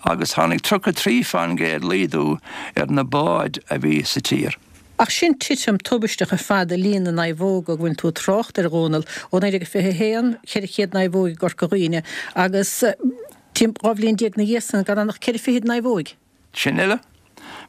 agus tháinig 33 fán gcéad laghdú ar na báid a bhí sa tír. Ach sin titim tubaisteach ar fad i líon na naomhóga go bhfuil tú ag trácht air, a Dhónaill, ó 1921, 400 naomhóg i gCorca Dhuibhne agus 12 bhliain ina dhiaidh san gan ann ach ceithre fichid naomhóig. Sin uile.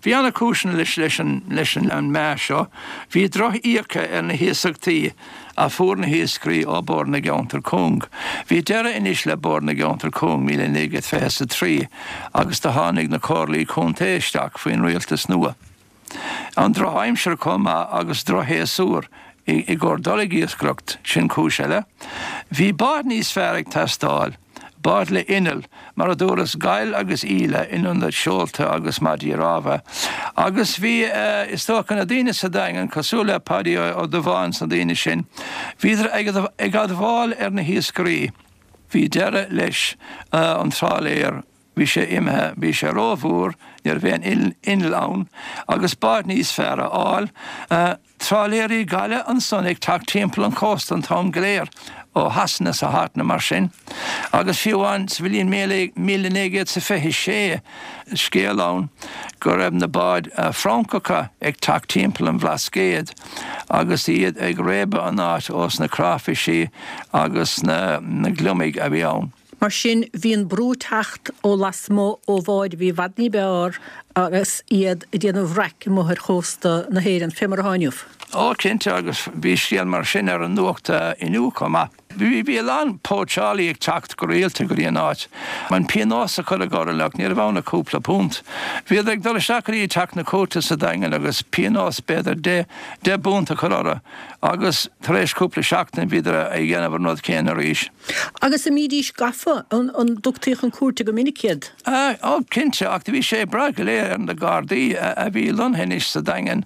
Bhí ana-chúiseanna leis leis an leis an meath seo. Bhí droch-íoca ar na hiasachtaí a fuair na hiascairí ó Bord na gCeantar Cúng. Bhí deireadh anois le Bord na gCeantar Cúng 1923 agus do tháinig na Comhairlí Contae isteach faoin rialtas nua. An drochaimsir chomh maith agus drochshéasúr i gcomhair dul ag iascaireacht, sin cúis eile. Bhí báid níos fearr ag teastáil, báid le innill, mar a dúras, gail agus íle in ionad seolta agus maidí rámha. Agus bhí, is dócha, na daoine sa Daingean, cosúil le Paidí Ó Dubháin 's na daoine sin, bhíodar ag admháil ar na hiascairí. Bhí deireadh leis an trálaer. Bhí sé imithe, bhí sé rómhór, ní raibh aon inneall ann, agus bád níos fearr a fháil. Trálaeirí gaile ansan ag teacht timpeall an chósta an t-am go léir, ó Shasana 's ó áiteanna mar sin. Agus fiú amháin sa bhliain 1926, scéal ann go raibh na báid Francacha ag teacht timpeall an Bhlascaoid agus iad ag réabadh an áit ós na cráifisí agus na gliomaigh a bhí ann. Mar sin, bhí an brú ag teacht ó lasmuigh ó bháid a bhí i bhfad ní b'fhearr agus iad ag déanamh raic amuigh ar chósta na hÉireann, fé mar atá inniu. Ó, cinnte, agus bhí scéal mar sin ar an nuacht inniu chomh maith. Bhí, bhí a lán póitseálaí ag teacht go rialta go dtí an áit. An pionós a cuireadh orthu, ach ní raibh ann ach cúpla punt. Bhíodar ag dul isteach go dtí teach na cúirte sa Daingean agus pionós b'fhéidir deich bpunt a chur orthu agus tar éis cúpla seachtain bhíodar ag déanamh an rud céanna arís. Agus an mbídís gafa? An dtugtaí chun cúirte go minic iad? Ó, cinnte, ach bhí sé ag brath go léir ar na Gardaí a bhí lonnaithe anois sa Daingean,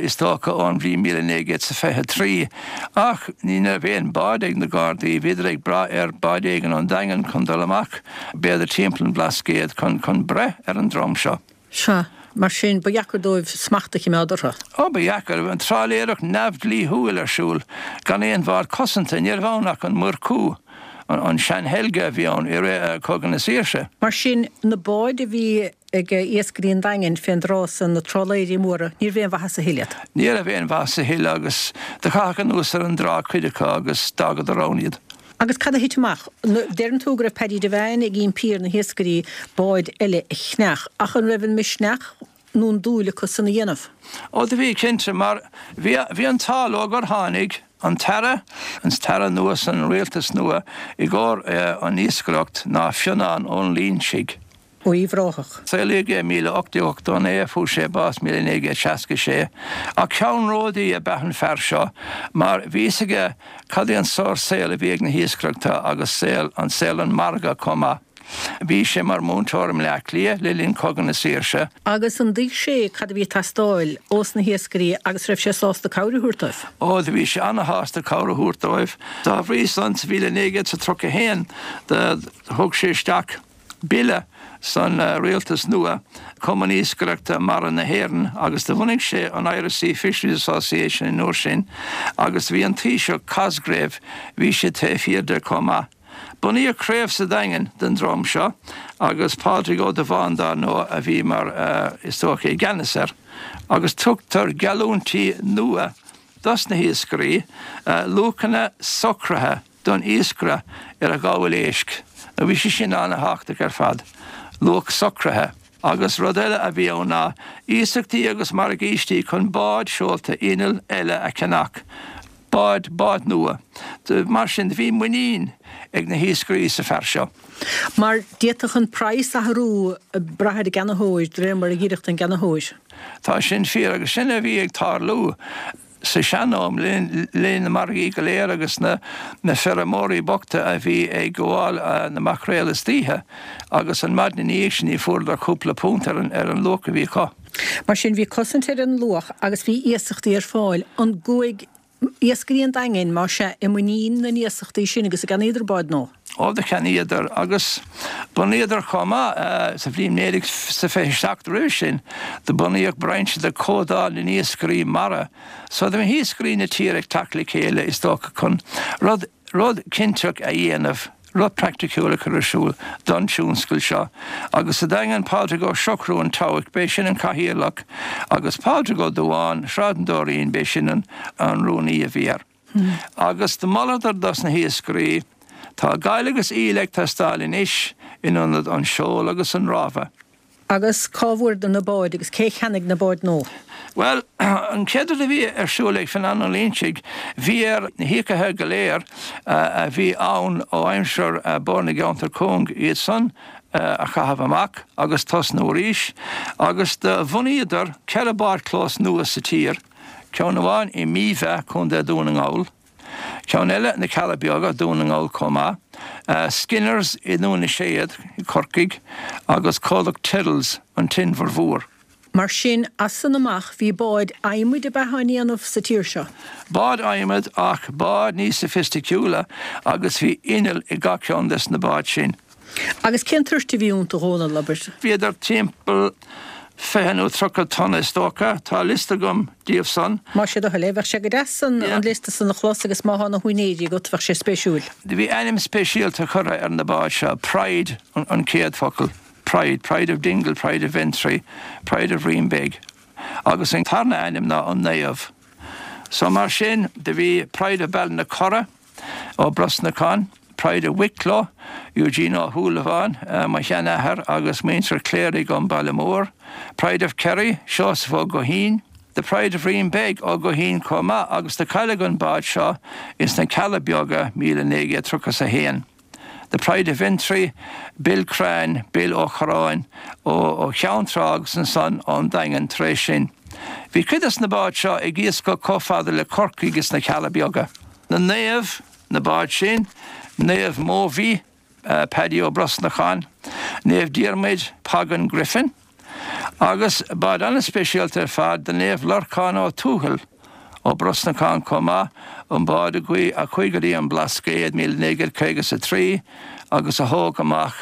is dócha, ón bhliain 1923. Ach ní raibh aon bád ag na Gardaí, bhíodar ag brath ar bád éigin ón Daingean chun dul amach, b'fhéidir timpeall an Bhlascaoid, chun breith ar an drong seo. Sea. Mar sin, ba dheacair dóibh smacht a chimeád orthu. Ó, ba dheacair. Bhí an trálaeireacht neamhdhlíthiúil ar siúl, gan aon bhád cosanta. Ní raibh ann ach an Murchú, an sean-Helga a bhí ann i rith Chogadh na Saoirse. Mar sin, na báid a bhí ag iascairí an Daingin fén dtráth san, na trálaeirí móra, ní raibh aon mhaitheas a thuilleadh iad. Ní raibh aon mhaitheas a thuilleadh agus do caitheadh anuas ar an dtrá cuid acu agus d'fhágadar ann iad. Agus cad a thit amach? Deireann tú go raibh Paddy Devane ag impí ar na hiascairí báid eile a cheannach, ach an raibh an misneach nó an dúil acu san a dhéanamh? Ó do bhí, cinnte, mar bhí, bhí an t-ádh leo gur tháinig an tAire, an tAire nua san rialtas nua i gcomhair an iascaireacht ná Fionán Ó Loingsigh. Uíbh Ráthach. Saolaíodh é 1889, fuair sé bás 1966. Ach ceannródaí ab ea an fear seo mar bhí fhios aige cad é an sórt saol a bhí ag na hiascaireachta agus saol an saol an margadh chomh maith. Bhí sé mar múinteoir i mBleá Cliath le linn Cogadh na Saoirse. Agus an dtuig sé cad a bhí ag teastáil ós na hiascairí agus raibh sé sásta cabhair a thabhairt dóibh? Ó, do bhí sé ana-shásta cabhair a thabhairt dóibh. Dá bhrí san, sa mhíle 1931 do thug sé isteach. bille san rialtas nua, Cumann Iascaireachta Mara na hÉireann, agus do bhunaigh sé an Irish Sea Fisheries Association an uair sin agus bhí an Taoiseach Cosgrave, bhí sé taobh thiar de chomh maith. Bunaíodh craobh sa Daingean den dream seo agus Pádraig Ó Dubháin dár ndóigh a bhí mar is dócha i gceannas air agus tugtar geallúintí nua dos na hiascairí, luachanna socraithe. don iascaire ar a ghabháil éisc, nó bhí sé sin ana-thábhachtach ar fad, luach socraithe. Agus rud eile a bhí ann ná iasachtaí agus morgáistí chun báid seolta innill eile a cheannach, báid, báid nua. Mar sin, bhí muinín ag na hiascairí sa fear seo. Mar d'fhéadfadh an praghas athrú ag brath ar an gceannaitheoir, de réir mar a dh'oirfeadh don gceannaitheoir. Tá sin fíor, agus sin a bhí ag tarlú. Sa sean-am, le linn na margaí go léir agus na feirmeoirí bochta a bhí ag gabháil na maicréal istoíche agus an maidin ina dhiaidh sin ní fuaireadar cúpla punt ar an luach a bhí acu. Mar sin bhí cosaint ar an luach agus bhí iasachtaí ar fáil. An gcuaigh Iascairí an Daingin, más ea, i muinín na n-iasachtaí sin agus a gceannaíodar báid nua. Ó, do cheannaíodar agus bunaíodar chomh maith sa bhliain 1927 roimhe sin do bunaíodh brainse de Comhdháil na nIascairí Mara. So do bhí hiascairí na tíre ag teacht le chéile is dócha chun rud, rud cinnteach a dhéanamh, rud praiticiúil a chur ar siúl don tionscal seo. Agus sa Daingean Pádraig Ó Siochrú an Tobhach, b'é sin an cathaoirleach agus Pádraig Ó Dubháin, Sráid an Dóirín, b'é sin an rúnaí a bhí air. Agus do mholadar dos na hiascairí, Tá gail agus íle ag teastáil anois in ionad an seol agus an rámha. Agus cá bhfuaireadar na báid agus cé cheannaigh na báid nua? Bhuel, an chéad rud a bhí ar siúl ag Fionán Ó Loingsigh, bhí air na híocaithe go léir a bhí ann ó aimsir Bord na gCeantar Cúng, iad san a chaitheamh amach agus tosnú arís. Agus do bhunaíodar 4 bádchlós nua sa tír. Ceann amháin i Míbha, Co. Dún na nGall, ceann eile na Cealla Beaga, Dún na nGall chomh maith, Skinners i nDún na Séad, Corcaigh, agus comhlacht Tyrrells, an tInbhear Mhór. Mar sin, as san amach bhí báid adhmaid ab ea á ndéanamh sa tír seo? Báid adhmaid ach báid níos soifisticiúla agus bhí inneall i gach ceann des na báid sin. Agus cén toirt a bhí iontu, a Dhónaill, abair? Bhíodar timpeall 20 nó 30 tonna is dócha. Tá liosta agam díobh san. Más é do thoil é, bheadh sé go deas an liosta san a chlos agus má thá na húinéirí agat, bheadh sé spéisiúil. Do bhí ainm speisialta curtha ar na báid seo, Pride an chéad focal, Pride, Pride of Dingle, Pride of Ventry, Pride of Reenbeg agus an tarna ainm ná an Naomh. So mar sin do bhí Pride of Ballinacurra, Ó Brosnacháin, Pride of Wicklow, Eugene Ó Shúilleabháin, mo sheanathair agus muintir Cléirigh ón Baile Mór, Pride of Kerry, Seosamh Ó Guithín, The Pride of Reenbeg, Ó Guithín chomh maith agus do cailleadh an bád seo ins na Cealla Beaga 1931. The Pride of Ventry, Bill Crean, Bill Ó Corráin, ó Cheann Trá agus ansan ón Daingean tar éis sin. Bhí cuid des na báid seo ag iascach chomh fada le Corcaigh is na Cealla Beaga. Na naoimh, na báid sin, Naomh Mobhí, Paddy Ó Brosnacháin, Naomh Diarmuid, Pagan Griffin, Agus bád an-speisialta ar fad do Naomh Lorcán Ó Tuathail, Ó Brosnacháin chomh maith, an bád a chuaigh go dtí an Blascaod 1953 agus a thóg amach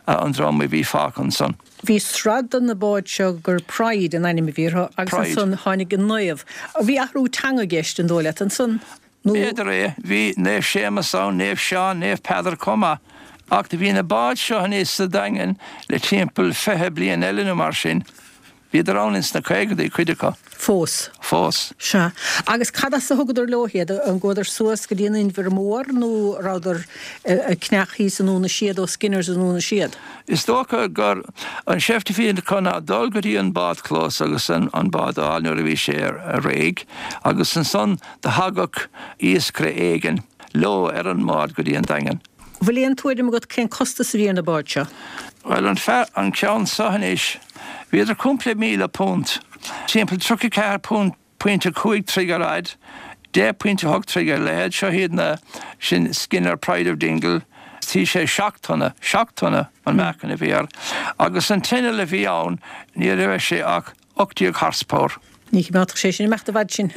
an drong a bhí fágtha ansan. Bhí sraith de na báid seo gur Pride an ainm a bhí orthu agus ansan tháinig an Naomh. Bhí athrú teanga i gceist, an dóigh leat, ansan? Nó. B'fhéidir é. Bhí Naomh Séamus ann, Naomh Seán, Naomh Peadar chomh maith. Ach do bhí na báid seo aníos sa Daingean le timpeall 20 bliain eile nó mar sin. Bhíodar ann ins na caogadaí, cuid acu. Fós. Fós. Sea. Agus cad as a thugadar leo iad? An gcuadar suas go dtí an Inbhear Mór nó a rabhadar ag ceannach thíos i nDún na Séad ó Skinners i Ndún na Séad? Is dócha gur an seift a bhí acu ná dul go dtí an bádchlós agus an bád a fháil nuair a bhí sé réidh agus ansan Do thagadh iascaire éigin leo ar an mbád go dtí an Daingean. Bhfuil aon tuairim agat cén costas a bhí ar na báid seo? Bhuel, an fear, an ceann so anois, bhíodar cúpla £1,000, timpeall 34 pointe 5 troigh ar fhaid, 10 pointe 8 troigh ar leithead, seo iad na, sin Skinner Pride of Dingle, bhí sé 7 tonna, 7 tonna an meáchan a bhí air, agus an t-inneall a bhí ann, ní raibh sé ach 18 horsepower. Ní choimeádfadh sé sin imeacht i bhfad sin.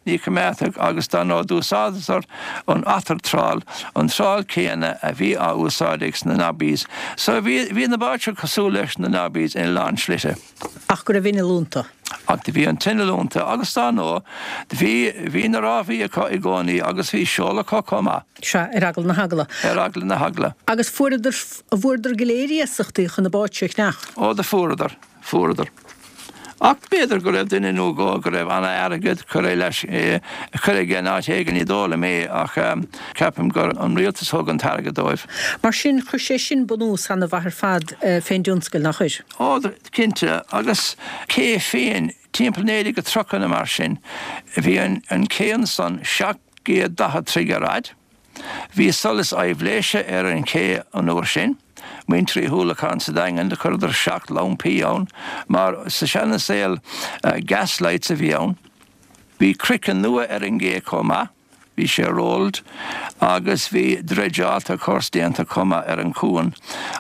Ní choimeádfadh agus dar ndóigh d'úsáideadar an otter trawl, an trál céanna a bhí á úsáid ag sna Nobbies. So bhí, bhí na báid seo cosúil leis na Nobbies ina lán slite. Ach go raibh inneall iontu. Ach do bhí an t-inneall iontu agus dar ndóigh do bhí, bhí na rámhaí acu i gcónaí agus bhí seol acu chomh maith. Sea, ar eagla na heagla. Ar eagla na heagla. Agus fuaireadar, bhfuaireadar go léir iasachtaí chun na báid seo a cheannach? Ó do fuaireadar. Fuaireadar. Ach b'fhéidir go raibh duine nó dhó go raibh ana-airgead curtha leis, curtha aige in áit éigin, ní dóigh liom é, ach ceapaim gur an rialtas a thug an t-airgead dóibh. Mar sin, chuir sé sin bunús ana-mhaith ar fad fén dtionscal, nach chuir? Ó, cinnte, agus cé féin, timpeall 1930 nó mar sin, bhí an cé ansan 740 troigh ar fhaid, Bhí solas aibhléise ar an ché an uair sin. Muintir Uí Shúilleabháin sa Daingean, do chuireadar 7 lampaí ann, mar sa seana saol gas lights a bhí ann. Bhí craiceann nua ar an gcé chomh maith. Bhí sé rolled agus bhí dreideálta course déanta chomh maith ar an chuan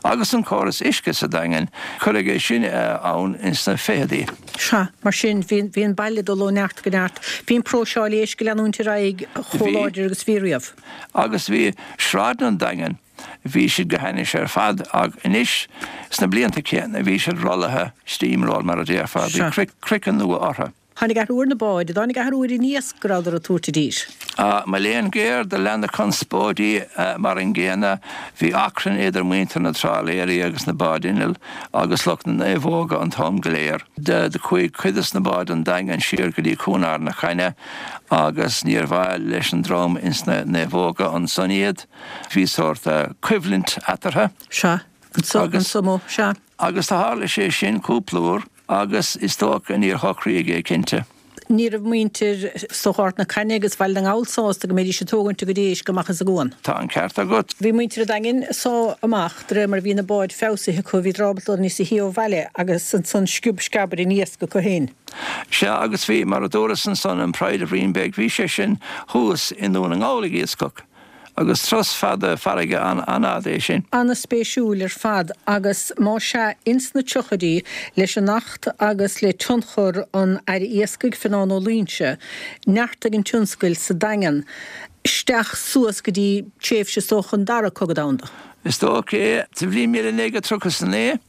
agus an córas uisce sa Daingean, cuireadh é sin ann ins na ficheadaí. Sea, mar sin, bhí, bhí an baile ag dul ó neart go neart. Bhí an próiseáil éisc ag leanúint ar aghaidh chomh láidir agus a bhí riamh. Agus bhí sráideanna an Daingin, bhí siad go hainnis ar fad ach anois sna blianta céanna bhí siad rollaithe, steam roll mar a déarfá, bhí craiceann nua orthu. Tháinig athrú ar na báid, dtáinig athrú ar an iasc go rabhadar ag tabhairt i dtír. Mo léan géar, do lean na conspóidí mar an gcéanna. Bhí achrann idir muintir na dtrálaeirí agus na báid innill agus lucht na naomhóga an t-am go léir. Do chuaigh cuid des na báid an Daingean siar go dtí Cuan Ard na Caithne agus níor mhaith leis an dream ins na naomhóga ansan iad. Bhí sórt coimhlint eatarthu. Sea, anso, anso mo, sea. Agus do tharla sé sin cúpla uair agus is dócha níor shocraíodh é cinnte. Ní raibh muintir is dócha Ard na Caithne agus Bhaile na nGall sásta go mbeidís ag tógaint a gcuid éisc amach as an gcuan. Tá an ceart agat. Bhí muintir an Daingin ag sá amach de réir mar a bhí na báid feabhsaithe acu, bhíodar ábalta dul níosa shia ó bhaile agus ansan sciob sceab ar an iasc acu féin. Sea agus bhí, mar a dúras ansan, an Pride of Reenbeg, bhí sé sin thuas i nDún na nGall ag iascach. Agus turas fada farraige an-fhada é sin. Ana-spéisiúil ar fad agus más ea, ins na tríochaidí, leis an Acht agus le tionchar an Aire Iascaigh, Fionán Ó Loingsigh, neartaigh an tionscail sa Daingean isteach suas go dtí tréimhse is dócha an Dara Cogadh Domhanda. Is dócha é. Sa bhliain 1939,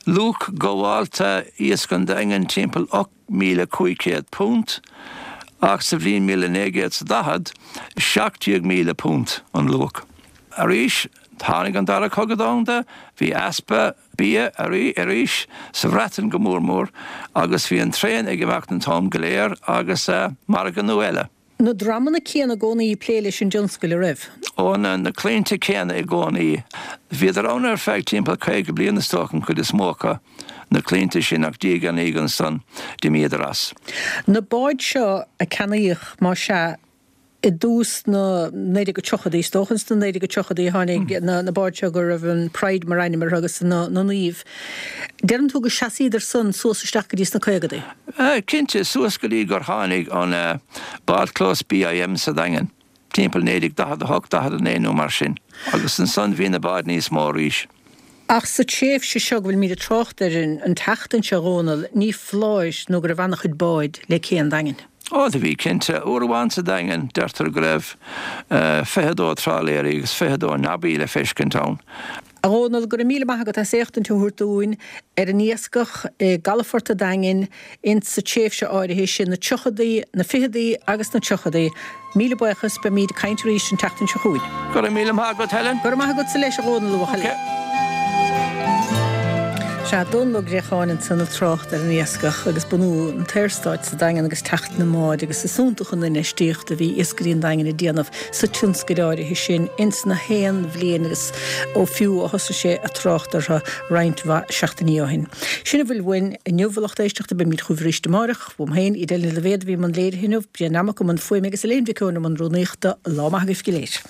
luach gabhálta iasc an Daingin timpeall £8,500 ach sa bhliain 1940, £17,000 an luach. Arís, tháinig an Dara Cogadh Domhanda, bhí easpa bia arís, sa Bhreatain go mór mór, agus bhí an traein ag imeacht an t-am go léir agus margadh nua eile. Na dreamanna céanna i gcónaí ag plé leis an dtionscal, a raibh? Ó, na claimhte céanna i gcónaí. Bhíodar ann ar feadh timpeall 50 bliain is dócha, an chuid is mó acu, na claimhte sin, ach diaidh ar ndiaidh ansan, d'imíodar as. Na báid seo a ceannaíodh, más ea, i dtús na 1930idí, is dócha ins na 1930idí a tháinig na báid seo go raibh an Pride mar ainm orthu agus na Naoimh. Deireann tú go seasaíodar san suas isteach go dtí sna caogadaí? Cinnte, suas go dtí gur tháinig an bádchlós BIM sa Daingean, timpeall 1948, 49 nó mar sin, agus ansan bhí na báid níos mó arís. Ach sa tréimhse seo go bhfuilimid ag trácht air an tseachtain seo, a Dhónaill, ní foláir nó go raibh an-chuid báid le cé an Daingin. Ó, do bhí, cinnte. Uair amháin sa Daingean, deirtear go raibh 22 trálaeirí agus 22 nobby le feiscint ann. A Dhónaill, go raibh míle maith agat as éachtaint a thabhairt dúinn ar an iascach i gcalafort a' Daingin ins sa tréimhse áirithe sin, na tríochadaí, na ficheadaí agus na tríochadaí. Míle buíochas, beimíd ag caint arís an tseachtain seo chugainn. Go raibh míle maith agat, Helen. Go raibh maith agatsa leis, a Dhónaill, a bhuachaill. Ok. Sea, Dónall Ó Gréacháin ansan ag trácht ar an iascach agus bunú an tSaorstáit sa Daingean agus teacht na mbád agus is iontach an infheistíocht a bhí iascairí an Daingin ag déanamh sa tionscail áirithe sin ins na haon bhliain agus ó fiú ó thosaigh sé ag trácht orthu roinnt mhaith seachtainí ó shin. Sin a bhfuil uainn inniu, a lucht éisteachta, beimid chugaibh arís amáireach. Uaim féin, Edel Ní Loibhéad a bhí i mbun léirithe inniu, Brian Nammock i mbun fuaime agus Elaine Mhic Eoin i mbun rúnaíochta. Lá maith agaibh go léir.